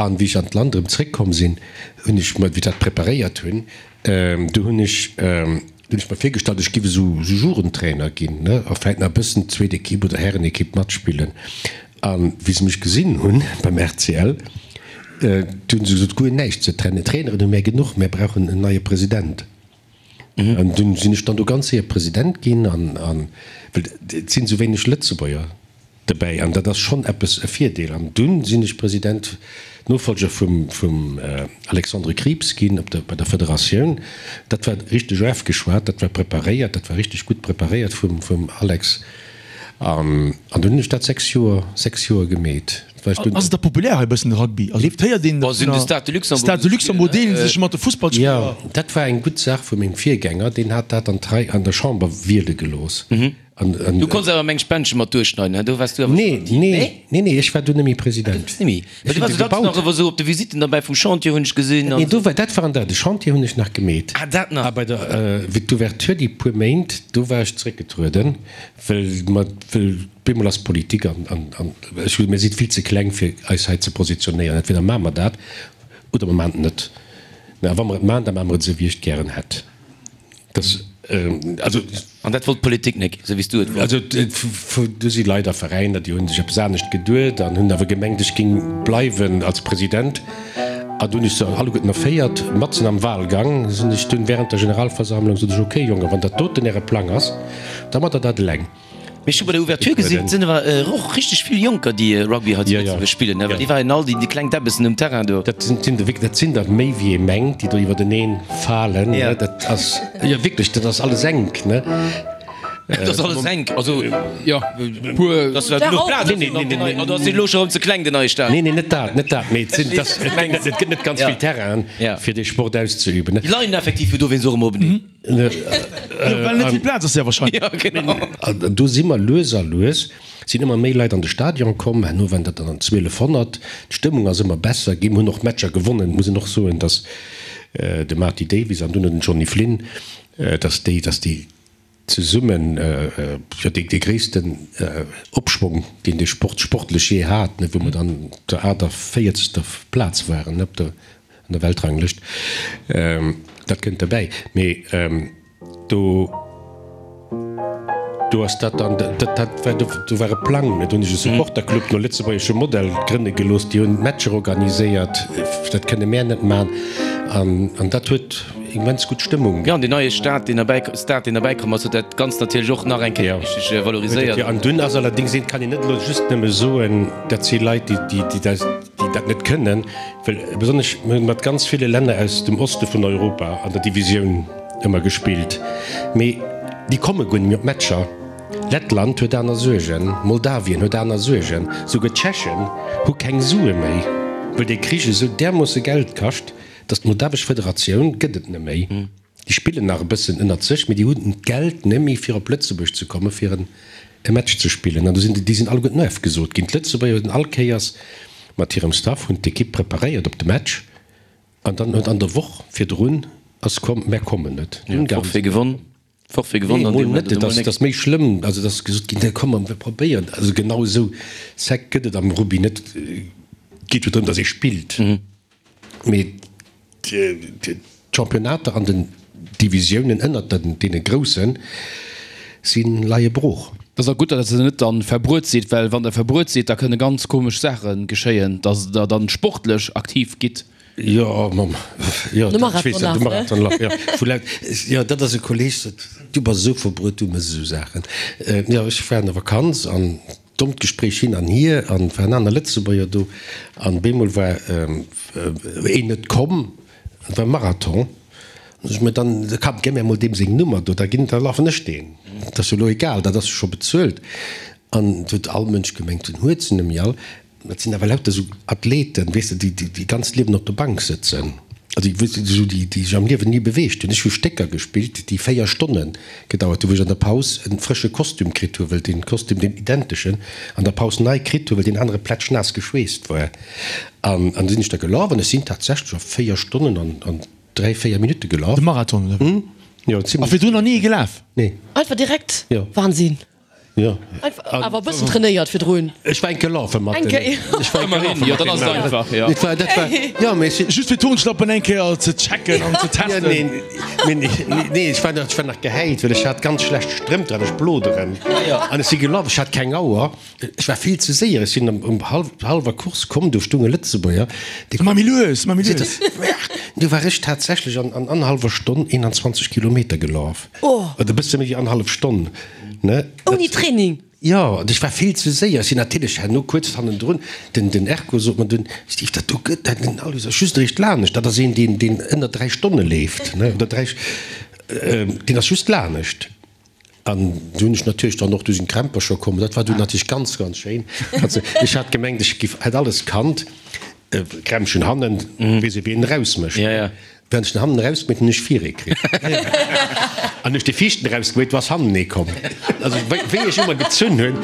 An wéi ech an d'Land erëm zréckkomm sinn, hunn ech mer, wéi ech dat preparéiert hunn, du hunn ech, du hunn ech mer virgestallt, ech giff esou Jugendtrainer ginn, ne, a vläit nach e bëssen zweet Equipe oder Härenequipe matspillen. A wéi se mech gesinn hunn beim RCL, du hunn se gesot, guer näischt ze trennen, Traineren hu mär genuch, mär brauchen en neie President. An dunn sinn ech dann do ganz séier President ginn, an, an, well et sinn esou wéineg Lëtzebuerger Dobäi, an dat ass schonn eppes, e Virdeel. An dunn sinn ech President, Nofolger vum, vum Alexandre Krieps ginn op der, bei der Federatioun. Dat war richteg ofgeschwat, dat war preparéiert, dat war richteg gutt preparéiert vum, vum Alex. An, an dunn hunn ech dat 6 Joer, 6 Joer gemeet. War ech dunn. Ass et da populär hei e bëssen de Rugby? Also et héiert een Bon, sinn de Stade de Luxembourg Stade de Luxembourg deelen sech mat de Fussballspiller. Jo, dat war eng gutt Saach vu mengem Virgänger, deen hat dat an d'Rei, an der Chamber wiele gelooss. Du konns awer meng Spendche mat duerchschneiden, he? Do waars du awer Nee, nee, nee, nee, ech war du nemmi President. Du nemmi? Well du waars jo dacks nach ewer sou op de Visitten derbäi vum Chantier, hunn ech gesinn. Nee, do war, dat war an der, de Chantier hunn ech nach gemeet. Ah, dat nach. A bei der, wéi d'Ouverture, déi puer Méint, do war ech zeréckgetrueden, well mer, well bemol ass Politik an, an, an ech hu, mir si vill ze kleng fir eis hei ze positionéieren. Entweder maache mer dat oder mer maachen et net. A wa mer et maachen, da maache mer et esou, wéi ech et gären hätt. Das, also. An dat wollt d'Politik nek, esou wéi s du et wollts? Also, do si Leit a Veräiner, déi hu sech eppes anescht geduet an hunn awer gemengt, ech géing bleiwen als President. An du hunn ech se alleguerten erféiert, matzen am Wahlgang sinn ech dunn während der Generalversammlung, sot ech, okay Jongen, wann dat doten äre Plang ass, da mat der dat eleng. Mee ech hu bei der Ouverture gesinn, et sinn awer och richteg vill Jonker, déi Rugby hei zu Lëtzebuerg spillen, ne? Well déi waren all déi kleng Däbbessen um Terrain do. Dat sinn der wierklech, dat sinn der méi wéi ee mengt, déi do iwwerteneen falen, ne? Dat ass, jo wierklech, dat ass alles enk, ne? Dat ass alles enk, also jo, puer. Dass war genuch Plaz op den neien, oder ass deen elo scho erëm ze kleng, den neie Stadion? Nee, nee, net dat, net dat, mee et sinn, dass, et gëtt net ganz vill Terrainen, fir dee Sport auszeüben, ne? Déi leien effektiv jo dowéinst och ëmmer openeen. Well net vill Plaz ass, sehr wahrscheinlech. Ja, genau. An do si mer lues a lues, sinn ëmmer méi Leit an de Stadion komm, herno waren dat dann 1200, d'Stëmmung ass ëmmer besser ginn, mir hunn och Matcher gewonnen, muss een och soen, datt de Marty Davies an dunn den Johnny Flynn, datt déi, datt déi zesummen, jo, dee gréissten Opschwong, deen de Sport sportlech jee hat, ne, wou mer dann op der 48. Plaz waren, ne, op der An der Weltranglëscht, dat kënnt derbäi. Mee do, do ass dat dann, dat, dat war, do war e Plang, do hunn ech e Supporterclub no lëtzebuergeschem Modell grënne gelooss, déi hunn d'Matcher organiséiert, dat kënne mär net man. An, an dat huet. immens gutt Stëmmung. Jo, an deen neie Stad, deen erbäi, Stad, deen erbäi komm ass, huet dat Ganzt natierlech och nach eng Kéier richteg valoriséiert. Jo, an dunn ass allerdéngs een, kann een net elo just nëmme soen, dat si Leit, déi, déi, déi dat, déi dat net kënnen, well besonnesch mir hunn mat ganz ville Länner aus dem Oste vun Europa an der Divisioun ëmmer gespillt, mee déi komme guer net méi op d'Matcher. Lettland huet aner Suergen, Moldawien huet aner Suergen, souguer d'Tschechen hu keng Sue méi, well dee Krich esou därmoosse Geld kascht, datt d'Moldawesch Federatioun gëtt et net méi. Déi spillen nach e bëssen ënnert sech, mee déi hunn d'Geld net méi fir op Lëtzebuerg ze komme fir e Match ze spillen. An do sinn déi sinn alleguerten ofgesot ginn. D'Lëtzebuerger hunn all Kéiers mat hirem Staff hunn d'Ekipp preparéiert op de Match an dann huet an der Woch virdrun ass komm, mär kommen net. Forfait gewonn. Forfait gewonn an deem Moment. Nee, dat ass méi schlëmm. Also, et ass gesot ginn, nee, komm, mir probéieren. Also genau esou sec gëtt et am Rugby net. Et geet jo drëm, datt ee spillt. Mee d'Championnater an den Divisiounen ënnert deene grousse si leie brooch. Et ass och gutt, datt Der net dann verbruet sidd, well wann Der verbruet sidd, da kënne ganz komesch Saache geschéien, datt Der dann sportlech aktiv gitt. Jo, mam, jo, De Marathonlaf, de Marathonlaf, jo, vu laut, jo, dat ass e Kolleg, sot, du bass esou verbruet, du méchs esou Saachen. Jo, ech war an der Vakanz an dommt Gespréich hin an hier an waren aner Lëtzebuerger do an bemol war een net komm, et war Marathon, an sot ech, mä dann komm, gëmm mär mol deem seng Nummer do, da ginn, da lafen ech deen, dat ass jo elo egal, dat ass jo scho bezuelt. An et huet all Mënsch gemengt, den huet se net méi all. Dat sinn awer lauter esou Athleten, weess de, déi déi ganzt Liewen op der Bank sëtzen, also déi, weess de, esou déi, déi sech am Liewen ni beweegt hunn. Ech hu Stécker gespillt, déi 4 Stonne gedauert hunn, wou ech an der Paus e frësche Kostüm kritt hu, well dee Kostüm, deen identeschen, an der Paus nei kritt hu, well deen anere plätschnaass geschweesst war. An an du sinn ech da gelaf an ech sinn tatsächlech a 4 Stonnen an an 3, 4 Minutte gelaf. De Marathon, oder wéi? Jo, zimlech. A virdrun nach ni ee gelaf? Nee. Einfach direkt? Jo. Wahnsinn. Jo. Awer e bëssen trainéiert virdrun. Ech war eng Kéier lafe mat Eng Kéier. Ech war eng Kéier lafe Jo, dann ass et einfach, jo. Dat war, dat war, jo, mee ech sinn. Just fir d'Turnschlappen eng Kéier ze checken an ze testen. Ja, nee, nee, nee, ech war nach, ech war nach gehäit, well ech hat ganz schlecht Strëmp dran, ech bloderen. An ech si gelaf, ech hat keng Auer, ech war vill ze séier, ech sinn um, um hallwer Course komm, do stoung e Lëtzebuerger, dee. Mar méi lues, mar méi lues. Du war ech tatsächlech an, an annerhallwer Stonn 21 Kilometer gelaf. Oder e bësse méi wéi annerhallef Stonn. Ne? Ouni Training? Jo, an ech war vill ze séier. Ech sinn natierlech herno kuerz hannendrun. Den, den Erko sot mer dunn, Steve, dat do gëtt, dat, den Aloyse ass just eréischt lanescht. Dat ass een, deen, deen ënner 3 Stonne leeft, ne, oder 3, deen ass just lanescht. An du hunn ech natierlech dann och, du sinn d'Krämpercher komm. Dat war dunn natierlech ganz, ganz schéin. Also, ech hat gemengt, ech giff, hätt alles kannt. Krämpchen hannen, weess ee wéi een erausmécht. Während ech den hannen erausgemeet hunn, hunn ech vir ee kritt. An hunn ech de viischten erausgemeet, du ass hannen ee komm. Also wéi wéi ech ëmmer gezunn hunn.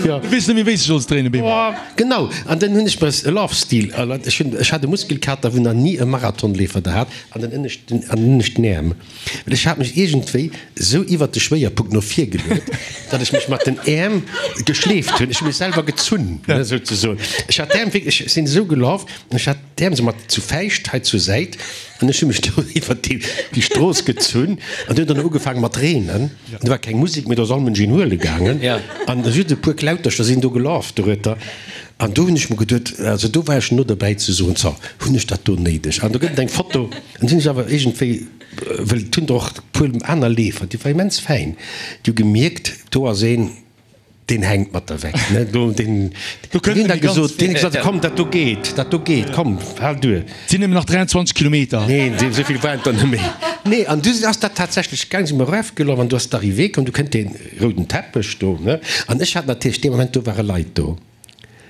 Jo. Du weess net méi wéi s de solls dréinen, Bemo. Genau. An dann hunn ech mer e Love Steel erlaabt. Ech hunn, ech hat e Muskelkater, wou nach ni e Marathonleefer der hat, an den ënneschten, an den ënneschten Äerm. Well ech hat mech iergendwéi esou iwwert de Schwéierpunkt no vir geluet, datt ech mech mat den Äerm geschleeft hunn. Ech hu mech selwer gezunn, souzesoen. Ech hat d'Äerm wierklech, ech sinn esou gelaf an ech hat d'Äerm esou mat zu Fäischt hei zur Säit an ech hu mech do iwwert déi Strooss gezunn an du huet dann ugefaange mat reenen. Do war keng Musek méi, do ass all Mënsch een huele gaangen an just e puer Klautercher sinn do gelaf dorueter. An do hunn ech mer geduet, also do war ech no derbäi ze soen, zo, hunn ech dat do néideg? An do gëtt et eng Foto, an sinn ech awer iergendwéi, well et hunn der och e puer aner Leefer, déi war immens fäin, déi hu gemierkt, do ass een, deen hänkt mat der weg, ne, do, deen, Do kënnt deen en huet déi ganz gesot, deen huet gesot, komm, dat do geet, dat do geet, komm, hal duer. Et sinn nëmmen nach 23 Kilometer. Neen, esou vill waren et der net méi. Nee, an du ass dat tatsächlech gaang, si mer erafgelaf an du ass d'Arrivée komm, du kënnt dee rouden Teppech do, ne, an ech hat natierlech dee Moment, do ware Leit do.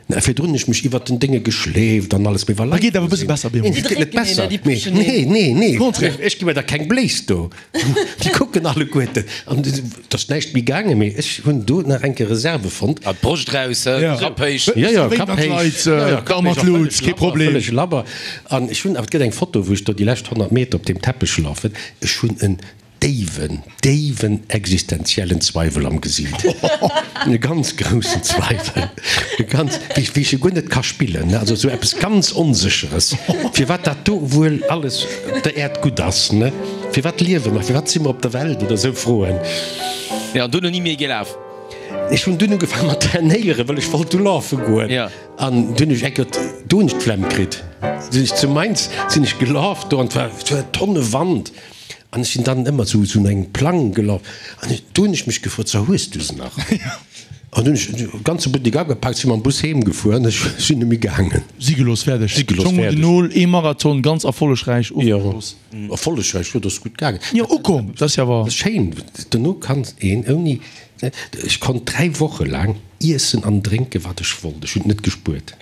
Na, virdrun hunn ech mech iwwert den Dénge geschleeft an alles, mee wa Leit do sinn. Neen, et geet net besser. Nee, nee, nee, ech gi mir da keng Bléis do. Déi kucken alleguerten an et ass näischt méi gaangen, mee ech hunn do nach eng Kéier Reserve fonnt. Ah, d'Broscht raus, Kapp héich. Jo, jo, Kapp héich, jo, jo, Kapp héich a vëlleg labber, vëlleg labber. An ech hunn, awer et gëtt eng Foto, wou ech do déi lescht 100 Meter op deem Teppech lafen, ech hunn en déiwen, déiwen existenziellen Zweiwel am Gesiit. E ganz groussen Zweiwel. E ganz, wéi, wéi ech e guer net ka spillen, ne, also esou eppes ganz Onsécheres, firwat dat do wuel alles op der Äerd gutt ass, ne, firwat liewe mer, firwat si mer op der Welt oder esou Froen. Jo, an duerno ni méi gelaf? Ech hunn dunn ugefaangen mat trainéieren, well ech wollt du lafe goen. An dunn hunn ech eng Kéier, do hunn ech d'Flemm kritt. Sinn ech zu Mainz, sinn ech gelaf do an et war, et war Tonne Wand. An ech sinn dann ëmmer sou, sou no engem Plang gelaf. An ech, do hunn ech mech gefrot, So, hues du se nach? An dunn hunn ech de ganze Buttek agepaakt, si mam Bus heem gefuer an ech sinn net méi gaangen. Si gelooss, fäerdeg. Si gelooss, Schong un fäerdeg. den Nol, ee Marathon ganz erfollegräich ofgeschloss. Jo, erfollegräich, jo, dat ass gutt gaangen. Jo, ukomm, dat ass jo awer. Dat ass schéin, dono kann een ouni, ech konnt 3 Woche laang iessen an drénken, wat ech wollt, ech hunn et net gespuert.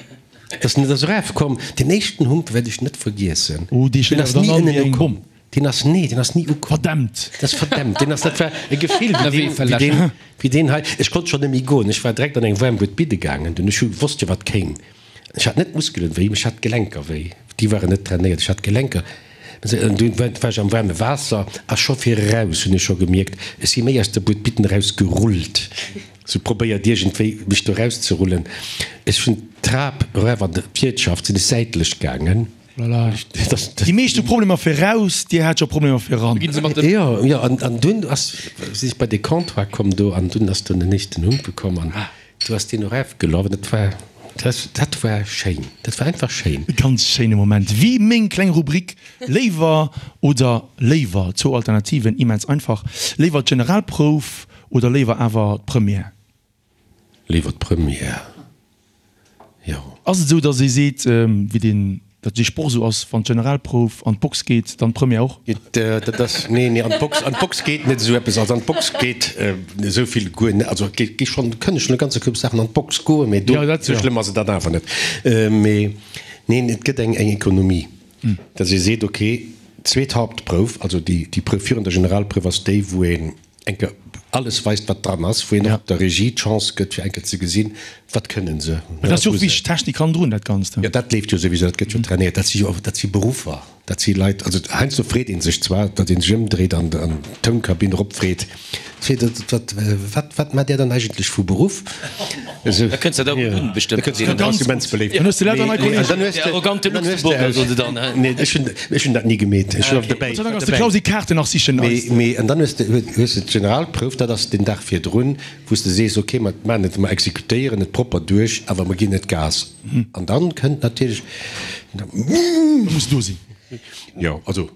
Et ass net ass erafkomm. Deen éischten Hump wäert ech net vergiessen. Oh, dee Deen schléit ass awer ni dann an ënnen wéi eng ukomm. Bomm. Deen ass, nee, deen ass ni ukomm. Verdämmt! Dat ass verdämmt. Deen ass, dat war e Gefill wéi deen, wéi deen, wéi deen hei. Ech konnt schonn net méi goen. Ech war direkt an eng waarm Bued bidde gaangen. Dunn, ech hu wosst jo wat kéim. Ech hat net d'Muskelen wéi, mee ech hat d'Gelenker wéi. Déi waren net trainéiert. Ech hat d'Gelenker. An dunn war ech am waarme Waasser a scho fir eraus hunn ech scho gemierkt, ech si méi aus der Bued bidden eraus gerullt. Sou probéiert iergendwéi mech do erauszerullen. Ech hunn d'Trap eraf an d'Wiertschaft sinn ech säitlech gaangen. Voilà. Déi meescht hu Problemer fir raus, Dir hat scho Problemer fir eran. Jo, jo, an dunn ass, sinn ech bei de Comptoir komm do an dunn ass dunn den éischten Humpe komm an du ass deen erafgelaf an dat war, dat war schéin, dat war einfach schéin. E ganz schéine Moment. Wéi meng kleng Rubrik Léiwer oder léiwer, zwou Alternativen, immens einfach. Léiwer d'Generalprouf oder léiwer awer d'Première? Léiwer d'Première, jo. Ass et esou, datt ee seet, wéi deen, datt dee Sproch esou ass, wann d'Generalprouf an d'Box geet, dann d'Première och? Dat ass, nee, nee, an d'Box, an d'Box geet net esou eppes. Also an d'Box geet esou vill guer net. Also et gi schonn, kënne schonn e ganze Koup Saachen an d'Box goen, mee do, esou schlëmm ass et dann awer net. Mee neen, et gëtt eng, eng Ekonomie, datt ee seet, okay, zweet Hauptprouf, also déi, déi Prouf virun der Generalprouf ass déi, wou een eng Kéier alles weist, wat dran ass, wou een och der Regie d'Chance gëtt, fir eng Kéier ze gesinn, wat kënnen se. Mä dat ass jo och wichteg, d'Technik hannendrun, dat Ganzt. Jo, dat leeft jo souwisou, dat gëtt jo trainéiert. Dat si jo, dat si Beruffer, dat si Leit, also heiansdo freet ee sech zwar, datt ee sech ëmdréit an d'Tounkabinn eropfreet, wat, wat, wat maacht Där dann eigentlech vu Beruff? Esou. Da kënns de der gutt un, bestëmmt. Da kënns de, dat ass immens beléift. Dann hues de lauter nei Kollegen. Dann hues de, Der arrogante dann hues de Luxemburger, soen se dann, hä? Nee, ech hunn, ech hunn dat ni gemeet. Ech war dobäi. Gott sei Dank ass de Clausi Kaarten nach sichen Mee, mee, an dann hues de, hues de d'Generalprouf, dat ass den Dag virdrun, wou s de sees, okay, mer maachen et, mer exekutéieren et propper duerch, awer mer ginn net Gas. An dann kënnt natierlech. Da muss do sinn. Jo, also.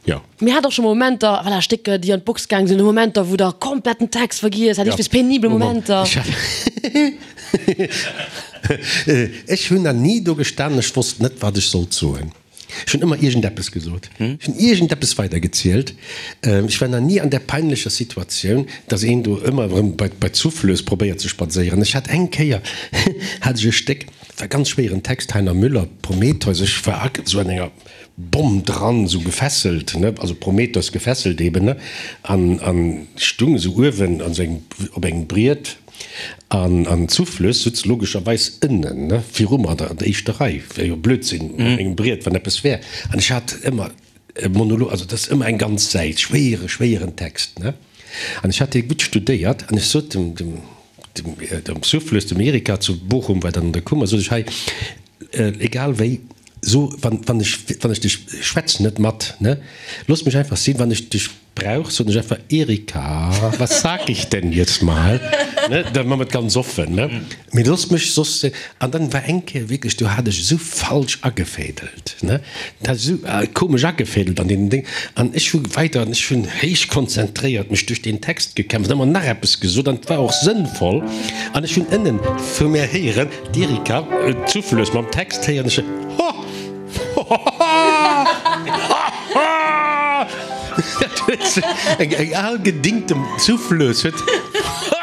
Jo. Mir hat och scho Momenter, voilà, Stécker, déi an d'Box gaang sinn, Momenter, wou der komplett den Text vergiess hat, iergendwéi penibel Momenter. Ech hunn nach ni do gestanen, ech wosst net, wat ech sollt soen. Ech hunn ëmmer iergendeppes gesot. Ech hunn iergendeppes weidergezielt. Ech war nach ni an där peinlecher Situatioun, dass een do ëmmer erëm bei d'Souffleuse probéiert ze spadséieren. Ech hat eng Kéier hat ech e Stéck, war e ganz schwéieren Text, Heiner Müller, Prometheus, ech war esou an enger Bomm dran, esou gefesselt, ne, also Prometheus gefesselt eben, ne, an, an stung esou uewen an esou engem, op engem Briet, an, an d'Souffleuse sutz logescherweis ënnen, ne, viru mer an der, an der éischter Rei, wär jo Blödsinn, op engem Briet, wann eppes wär, an ech hat ëmmer e Monolog, also dat ass ëmmer eng ganz Säit, schwéiere, schwéieren Text, ne, an ech hat dee gutt studéiert, an ech sot dem, dem, dem, dem Souffleuse, dem Erika zu Bochum war dann an der Kummer, sot ech, hei, Egal wéi, so, wann, wann ech, wann ech dech, schwätz net mat, ne? Looss mech einfach sinn, wann ech dech brauch, soen ech einfach, Erika, was sag ich denn jetzt mal? Ne? Da man et ganz offen, ne? Mee looss mech soss, an dann war eng Kéier wierklech, do hat ech esou falsch agefädelt, ne? Dat hat esou komesch agefädelt an deenen Déng, an ech hu weider, an ech hunn héich konzentréiert mech duerch deen Text gekämpft, ëmmer nach eppes gesot, an et war och sënnvoll, an ech hunn ënnen vu mär héieren, D'Erika zuflöss mam Text héieren ech Ho! Ho! Dat huet se, eng eng al gedingte Souffleuse huet Ho!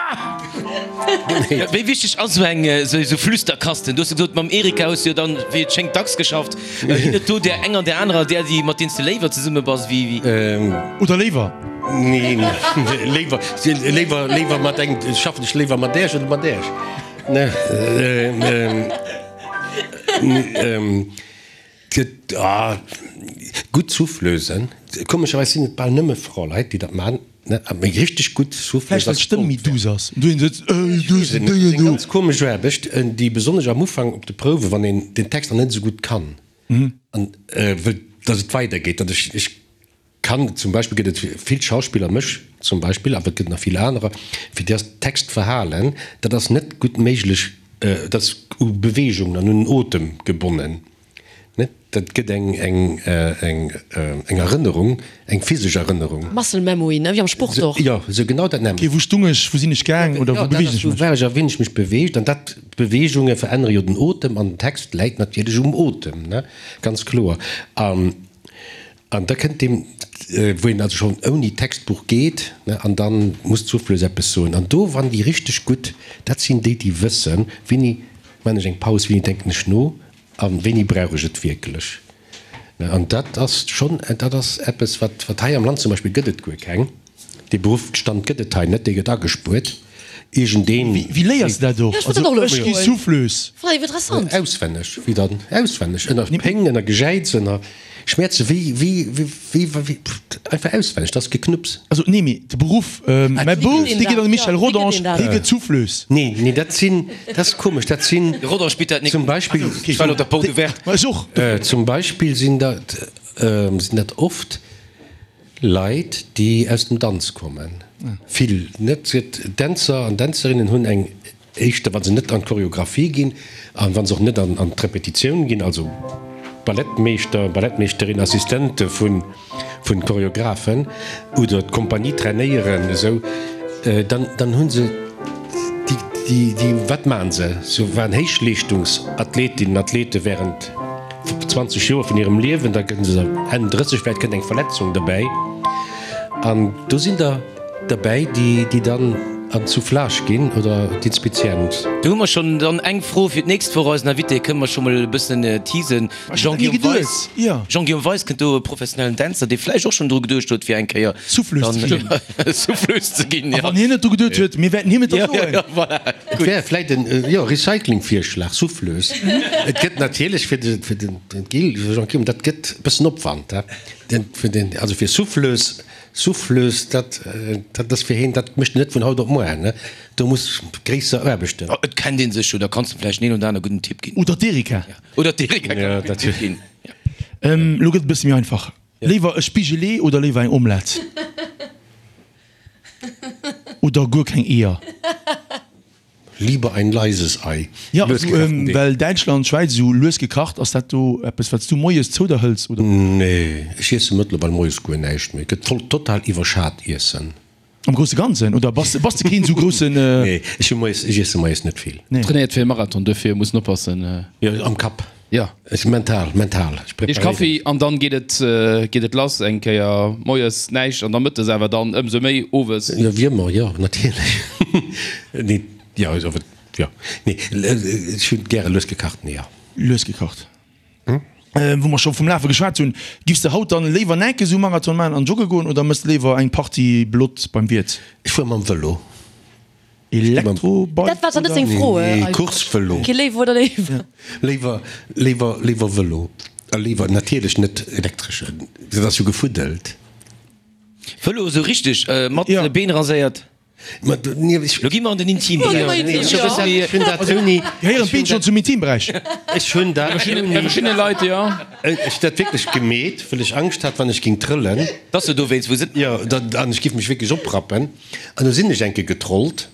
Gemeet. Wéi wichteg ass esou eng esou Flüsterkasten? Du hues jo gesot, mam Erika hues du jo dann, wéi et schéngt, dacks geschafft. Ginn et do där eng an där anerer, där, déi, mat deenen s de léiwer zesumme bass, wéi, wéi? Oder léiwer? Neen, léiwer, léiwer, léiwer mat engem, schaffen ech léiwer mat Äech oder mat Äech? Gutt Souffleusen, komescherweis sinn et bal nëmme Fraleit, déi dat man, mee richteg gutt Souffleuse. Vläicht well d'Stëmm méi duuss ass. Eng ganz komesch Aarbecht, déi besonnesch am Ufank op de Prouwen, wann een den Text nach net esou gutt kann an wëllt, datt et weidergeet, datt ech. Kann, zum Beispill gëtt et vill Schauspiller, mech zum Beispill, awer et gëtt nach vill anerer, fir déi ass Textverhalen, dat ass net gutt méiglech, dat ass u Beweegungen an un den Otem gebonnen. Net, dat gëtt eng, eng, eng, eng Erënnerung, eng physesch Erënnerung. Muscle memory, ne, wéi am Sport och. Jo, esou genau dat Okay, nämmlecht. wou stung ech, wou sinn ech gaang oder wou Jo, dat beweegen ass, ech wou mech? war ech a wéini ech mech beweegt. An dat, d'Beweegunge verännere jo den Otem an den Text läit natierlech um Otem, ne, ganz kloer. An An da kënnt deem, wou een also schonn ouni Textbuch geet, ne, an da muss d'Souffleuse eppes soen. An do, wann déi richteg gutt, dat sinn déi, déi wëssen, wéini man ech eng Paus, wéini denken ech no a wéini brauch ech et wierklech. Ne, an dat ass schonn, dat ass eppes, wat, wat hei am Land zum Beispill gëtt et guer keng. Dee Beruffsstand gëtt et hei net, dee gëtt agespuert. Iergendeen. Wéi léiers de dat och? Ja, ech wollt dat och Also elo ech gi froen. Souffleuse. Fannen ech interessant. Auswenneg, wéi dann? Auswenneg, ënner Péng, ënner Gejäiz, ënner Schmäerze, wéi, wéi, wéi, wéi, einfach auswenneg, dat ass Geknupps. Also nee, mee de Beruff, mäi Bouf, dee geet an de Michel Wéi gëtt Rodange, een dat? hie gëtt Souffleuse. Nee, nee, dat sinn, dat ass komesch, dat sinn De Rodange bitt dat nik. zum Beispill, Ech war op der Porte ouverte. Ma ech och. zum Beispill sinn dat, sinn dat oft Leit, déi aus dem Danz kommen, vill net. Dänzer an Dänzerinnen hunn eng éischter, wa se net an d'Choreographie ginn a wa se och net an d'Repetitioun ginn, also Ballettmeeschter, Ballettmeeschterin, Assistente vu Choreographen oder d'Kompanie trainéieren, esou, dann, dann hu se déi, déi, wat maachen se? Se waren Héichleeschtungsathletinnen, Athlete während. 20 Joer vun hirem Liewen, da gëtt se Enn 30, vläicht kënnt eng Verletzung dobäi an do sinn der derbäi, déi déi dann an d'Soufflage ginn oder d'Inspizient. Do hu mer schonn dann eng Fro fir d'nächst Woch. Eisen Invité kënne mer scho mol e bëssen teasen, de Jean-Guillaume Weis. Jean-Guillaume Weis kënnt do, e professionellen Dänzer, dee vläicht och schonn dru geduecht huet, fir eng Kéier Souffleuse ze ginn. A wann hien net dru geduet huet, mir wäerten him et da soen. Jo, voilà. Et wär vläit en, jo, Recycling-Virschlag, Souffleuse. Et gëtt natierlech fir de, fir den Gil, Jean-Guillaume, dat gëtt e bëssen Opwand, he, den, fir den, also fir Souffleuse, Souffleuse, dat, dat ass fir heen, dat mécht en net vun haut op muar, ne, do muss gréisser Aarbechten. Et kennt ee sech jo, da kanns de vläicht den een oder aner gudden Tipp ginn. Oder d'Erika. Oder d'Erika kann e gudden Tipp ginn. Elo gëtt et e bësse méi einfach. Léiwer e Spigelee oder léiwer eng Omelette? Oder guer keng Eeër? Lieber ein leises Ei. Jo, well Däitschland, Schwäiz esou lues gekacht, ass dat do eppes wat s du moies zou der hëls oder? Nee, ech iesse mëttlerweil moies guer näischt méi. Gëtt voll total iwwerschat Iessen. Am grousse Ganzen oder bass bass de keen esou groussen? Nee, ech hu moies, ech iesse moies net vill. Nee. Trainéiert fir e Marathon, duerfir muss en oppassen. Jo, am Kapp. Jo. Ech mental, mental. Ech Eech preparéieren. Kaffi an dann geet et, geet et lass. Eng Kéier moies näischt an da mëttes awer dann ëmsou méi owes. Jo, wéi ëmmer, jo, natierlech. Nee, jo, also, jo, nee, ech hunn gäre lues gekachten Eeër. Lues gekacht. Wou mer scho vum Lafe geschwat hunn, Giffs de haut dann léiwer näke sou Marathon maachen an jogge goen oder mëss de léiwer eng Partie Blott beim Wiert? Ech fuere mam Vëlo. Elektrobike Dat war zwar net seng Fro. Nee, Coursevëlo. Kee Léiwer oder léiwer? Léiwer, léiwer, léiwer Vëlo. A léiwer natierlech net elektreschen. Dat ass jo gefuddelt. Vëlo esou richteg mat Been raséiert? Ma nee, ech. Lo gi mer an den Intimberäich. Ech hunn dat ouni. Gehéieren d'Been schonn zum Intimberäich? Ech hunn dat ouni. Bei verschiddene Leit, jo. Ech hunn dat wierklech gemeet, wëll ech Angscht hat, wann ech ging trëllen. Dass se dowéinst wou se. Jo, an ech giff mech wierklech oprappen. An du sinn ech enke getrollt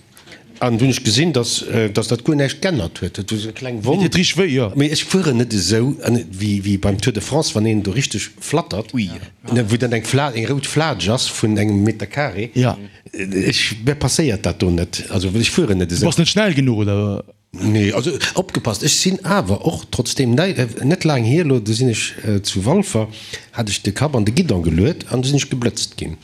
an du hunn ech gesinn, dass dass dat guer näischt g'ännert huet. Et huet esou eng kleng Wonn. Deet richteg wéi, jo. Mee ech fueren net esou wéi wéi beim Tour de France, wann een do richteg flattert, wou dann eng Fla eng rout Flatsch ass vun engem Meter carré. Ja. Ech, mir passéiert dat do net. Also ech fueren net Du esou. bass net schnell genuch, oder? Nee, also opgepasst, ech sinn awer och trotzdeem net laang hier elo, do sinn ech zu Walfer, hat ech de Kapp an de Guidon geluet an du sinn ech geblëtzt ginn.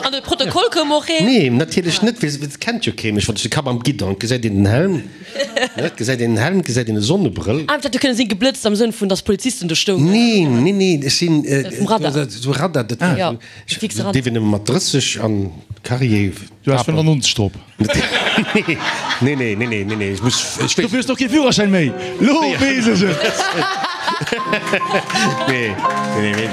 An de Protokoll koum och een? Nee, natierlech net, well et kennt jo kee mech, wann ech de Kapp am Guidon, et gesäit een den Helm, ne, et gesäit een den Helm, et gesäit een e Sonnebrëll. Ah, et hätt jo kënne sinn, geblëtzt am Sënn vun, dass Polizisten do stoungen. Nee, nee, nee, ech sinn Vum Radar. esou Radar, dat war esou, Fixe Radar. dierf een nëmme mat 30 an Carrier. Du has 95 drop. Nee, nee, nee, nee, nee, nee, ech muss, ech Dofir hues de och kee Führerschäin méi. Lo weess ech et. Nee, nee, nee.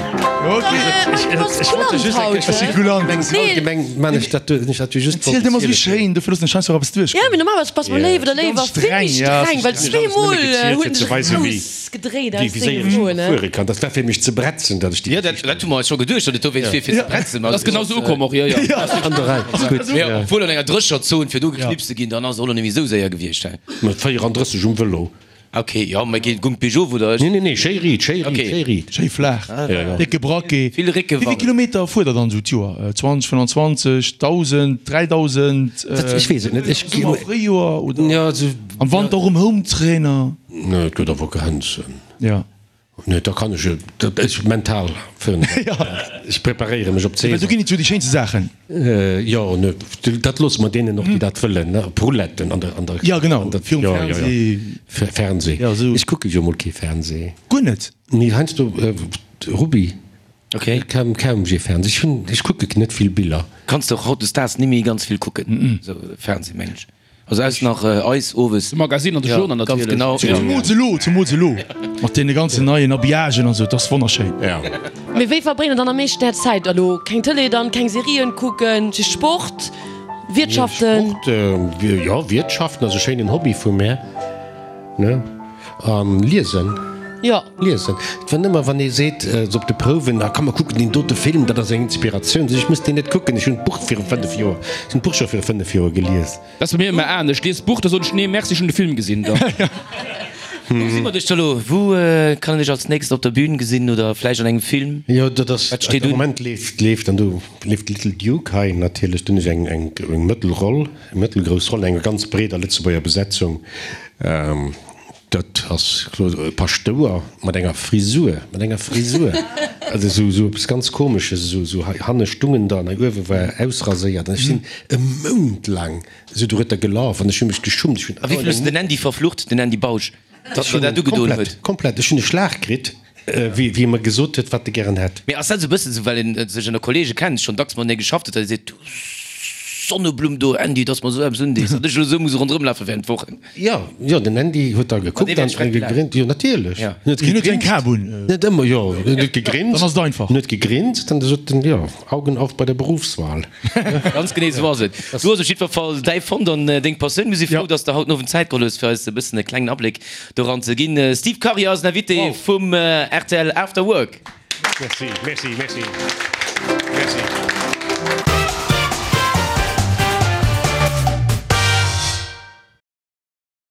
Ech wollt just eng Kéier. Ech si kulant. Allgemeng man ech dat, ech dat just. Ziel dir mol wéi schéin, dofir loossen ech heiansdo och eppes duerchgoen. Ja, mee normalerweis bass mol léif oder léiwer vill méi streng, well zweemol huet en sech rausgedréit aus senge Froen, ne? Fuere kann. Dat war fir mech ze bretzen, datt ech déi. Jo, dat, dat hu mer eis scho geduecht, datt et dowéinst wier fir ze bretzen. Dat ass genau sou ukomm och, jo, jo. An der Rei. Gutt. Mee obwuel an enger drécher Zon, fir do geknipst ze ginn, dann ass et och nach net méi sou séier gewiescht, hä? Mat 34 um Vëlo. Ok, jo, mä geet gung d'Peugeot oder ech? Nee, nee, nee, schéi riit, schéi riit, Ok. schéi riit. Schéi flaach, Ja, ja. décke Braquet. Vill Réckewann. Wéi vill Kilometer fuert der dann esou d'Joer? 20, 25, 1.000, 3.000? Dat, ech weess et net. Ech. Summer, Fréijoer oder? Ja, esou. Am Wanter och um Hometrainer? Nee, et gëtt awer Grenzen. Ja. Nee, da kann ech, dat ech mental fir, ech preparéiere mech op Well do d'Saison. ginn et jo déi schéinste Saachen. Jo, ne, dat loosse mer deenen och, déi dat wëllen, ne, op Rouletten an der, an der. Ja, genau, an der, virum jo, jo, jo. Fernseh. Fernseh. Ja, esou. Ech kucke jo mol kee Fernseh. Guer net? Nee, heiansdo Rubby. Ok. Kaum, kaum jee Fernseh. Ech hunn, ech kucke net vill Biller. Kanns de och hautdesdaags nimmi ganz vill kucken, esou Fernseh, mengen ech. Also aus nach eis owes. De Magazine an de Journal natierlech. Ganz genau. Zumools elo, zumools elo mat deene ganzen neien Habillagen an esou, et ass wonnerschéin. Ja. Mee wéi verbréngt der dann am meeschten är Zäit elo? Keng Tëlee dann, keng Serien kucken, just Sport, Wiertschaften? Sport, jo, Wiertschaften ass e schéinen Hobby vu mär, ne? An liesen. Jo. Liesen. Et war nëmmer wann ee seet, esou op de Prouwen, ah komm mer kucken deen dote Film, dat ass eng Inspiratioun. Sot ech, ech muss deen net kucken, ech hunn d'Buch viru 5 Joer, ech hunn d'Buch scho viru 5 Joer gelies. Dat ass bei mir ëmmer anescht, ech lies d'Buch, da soen ech, nee merci, ech hunn de Film gesinn da. Wou gesi mer dech da lo? Wou kann een dech als nächst op der Bühn gesinn oder vläicht an engem Film? Jo, dat ass, Wat steet am un? Moment leeft, leeft an do leeft Little Duke hei natierlech, do hunn ech eng, eng Mëttelroll, eng mëttelgrouss Roll an enger ganz breeder Lëtzebuerger Besetzung. Dat ass e Paschtouer mat enger Frisur, mat enger Frisur, also esou, esou eppes ganz Komesches, esou, esou hei hanne stungen der an hei uewe war ausraséiert. An ech sinn e Mount laang esou dorueter gelaf an ech hu mech geschummt. Ech hunn A wéi vill hues de den Andy verflucht, den Andy Bausch, datt en der dat ugedoen huet? Komplett, komplett. Ech hunn e Schlag kritt, wéi, wéi e mer gesot huet, wat e gären hätt. Mee ass dat esou e bëssen esou, well een sech ënner Kollege kennt, schonn dacks matenee geschafft huet, datt ee seet, du Sonneblumm do, Andy, datt mer esou eppes undees, datt ech elo esou muss ronderëmlafe während Wochen? Jo, jo, den Andy huet da gekuckt an gegrinst. Jo, natierlech. Ja. En huet Hien huet eng gegrinst. Kap un. Net ëmmer, jo. En huet gegrinst. Dann ass et einfach. En huet gegrinst an da sot en, jo, Augen auf bei der Berufswahl. Ganz genee esou ass et. Du hues op jiddwer Fall däi fonnt an deng Passioun. Mir si frou, Ja. dass de haut den Owend Zäit geholl hues, fir eis e bëssen e klengen Abléck doran ze ginn. Steve Karier ass den Invité vum rtl After Work. Merci, merci, merci. Merci.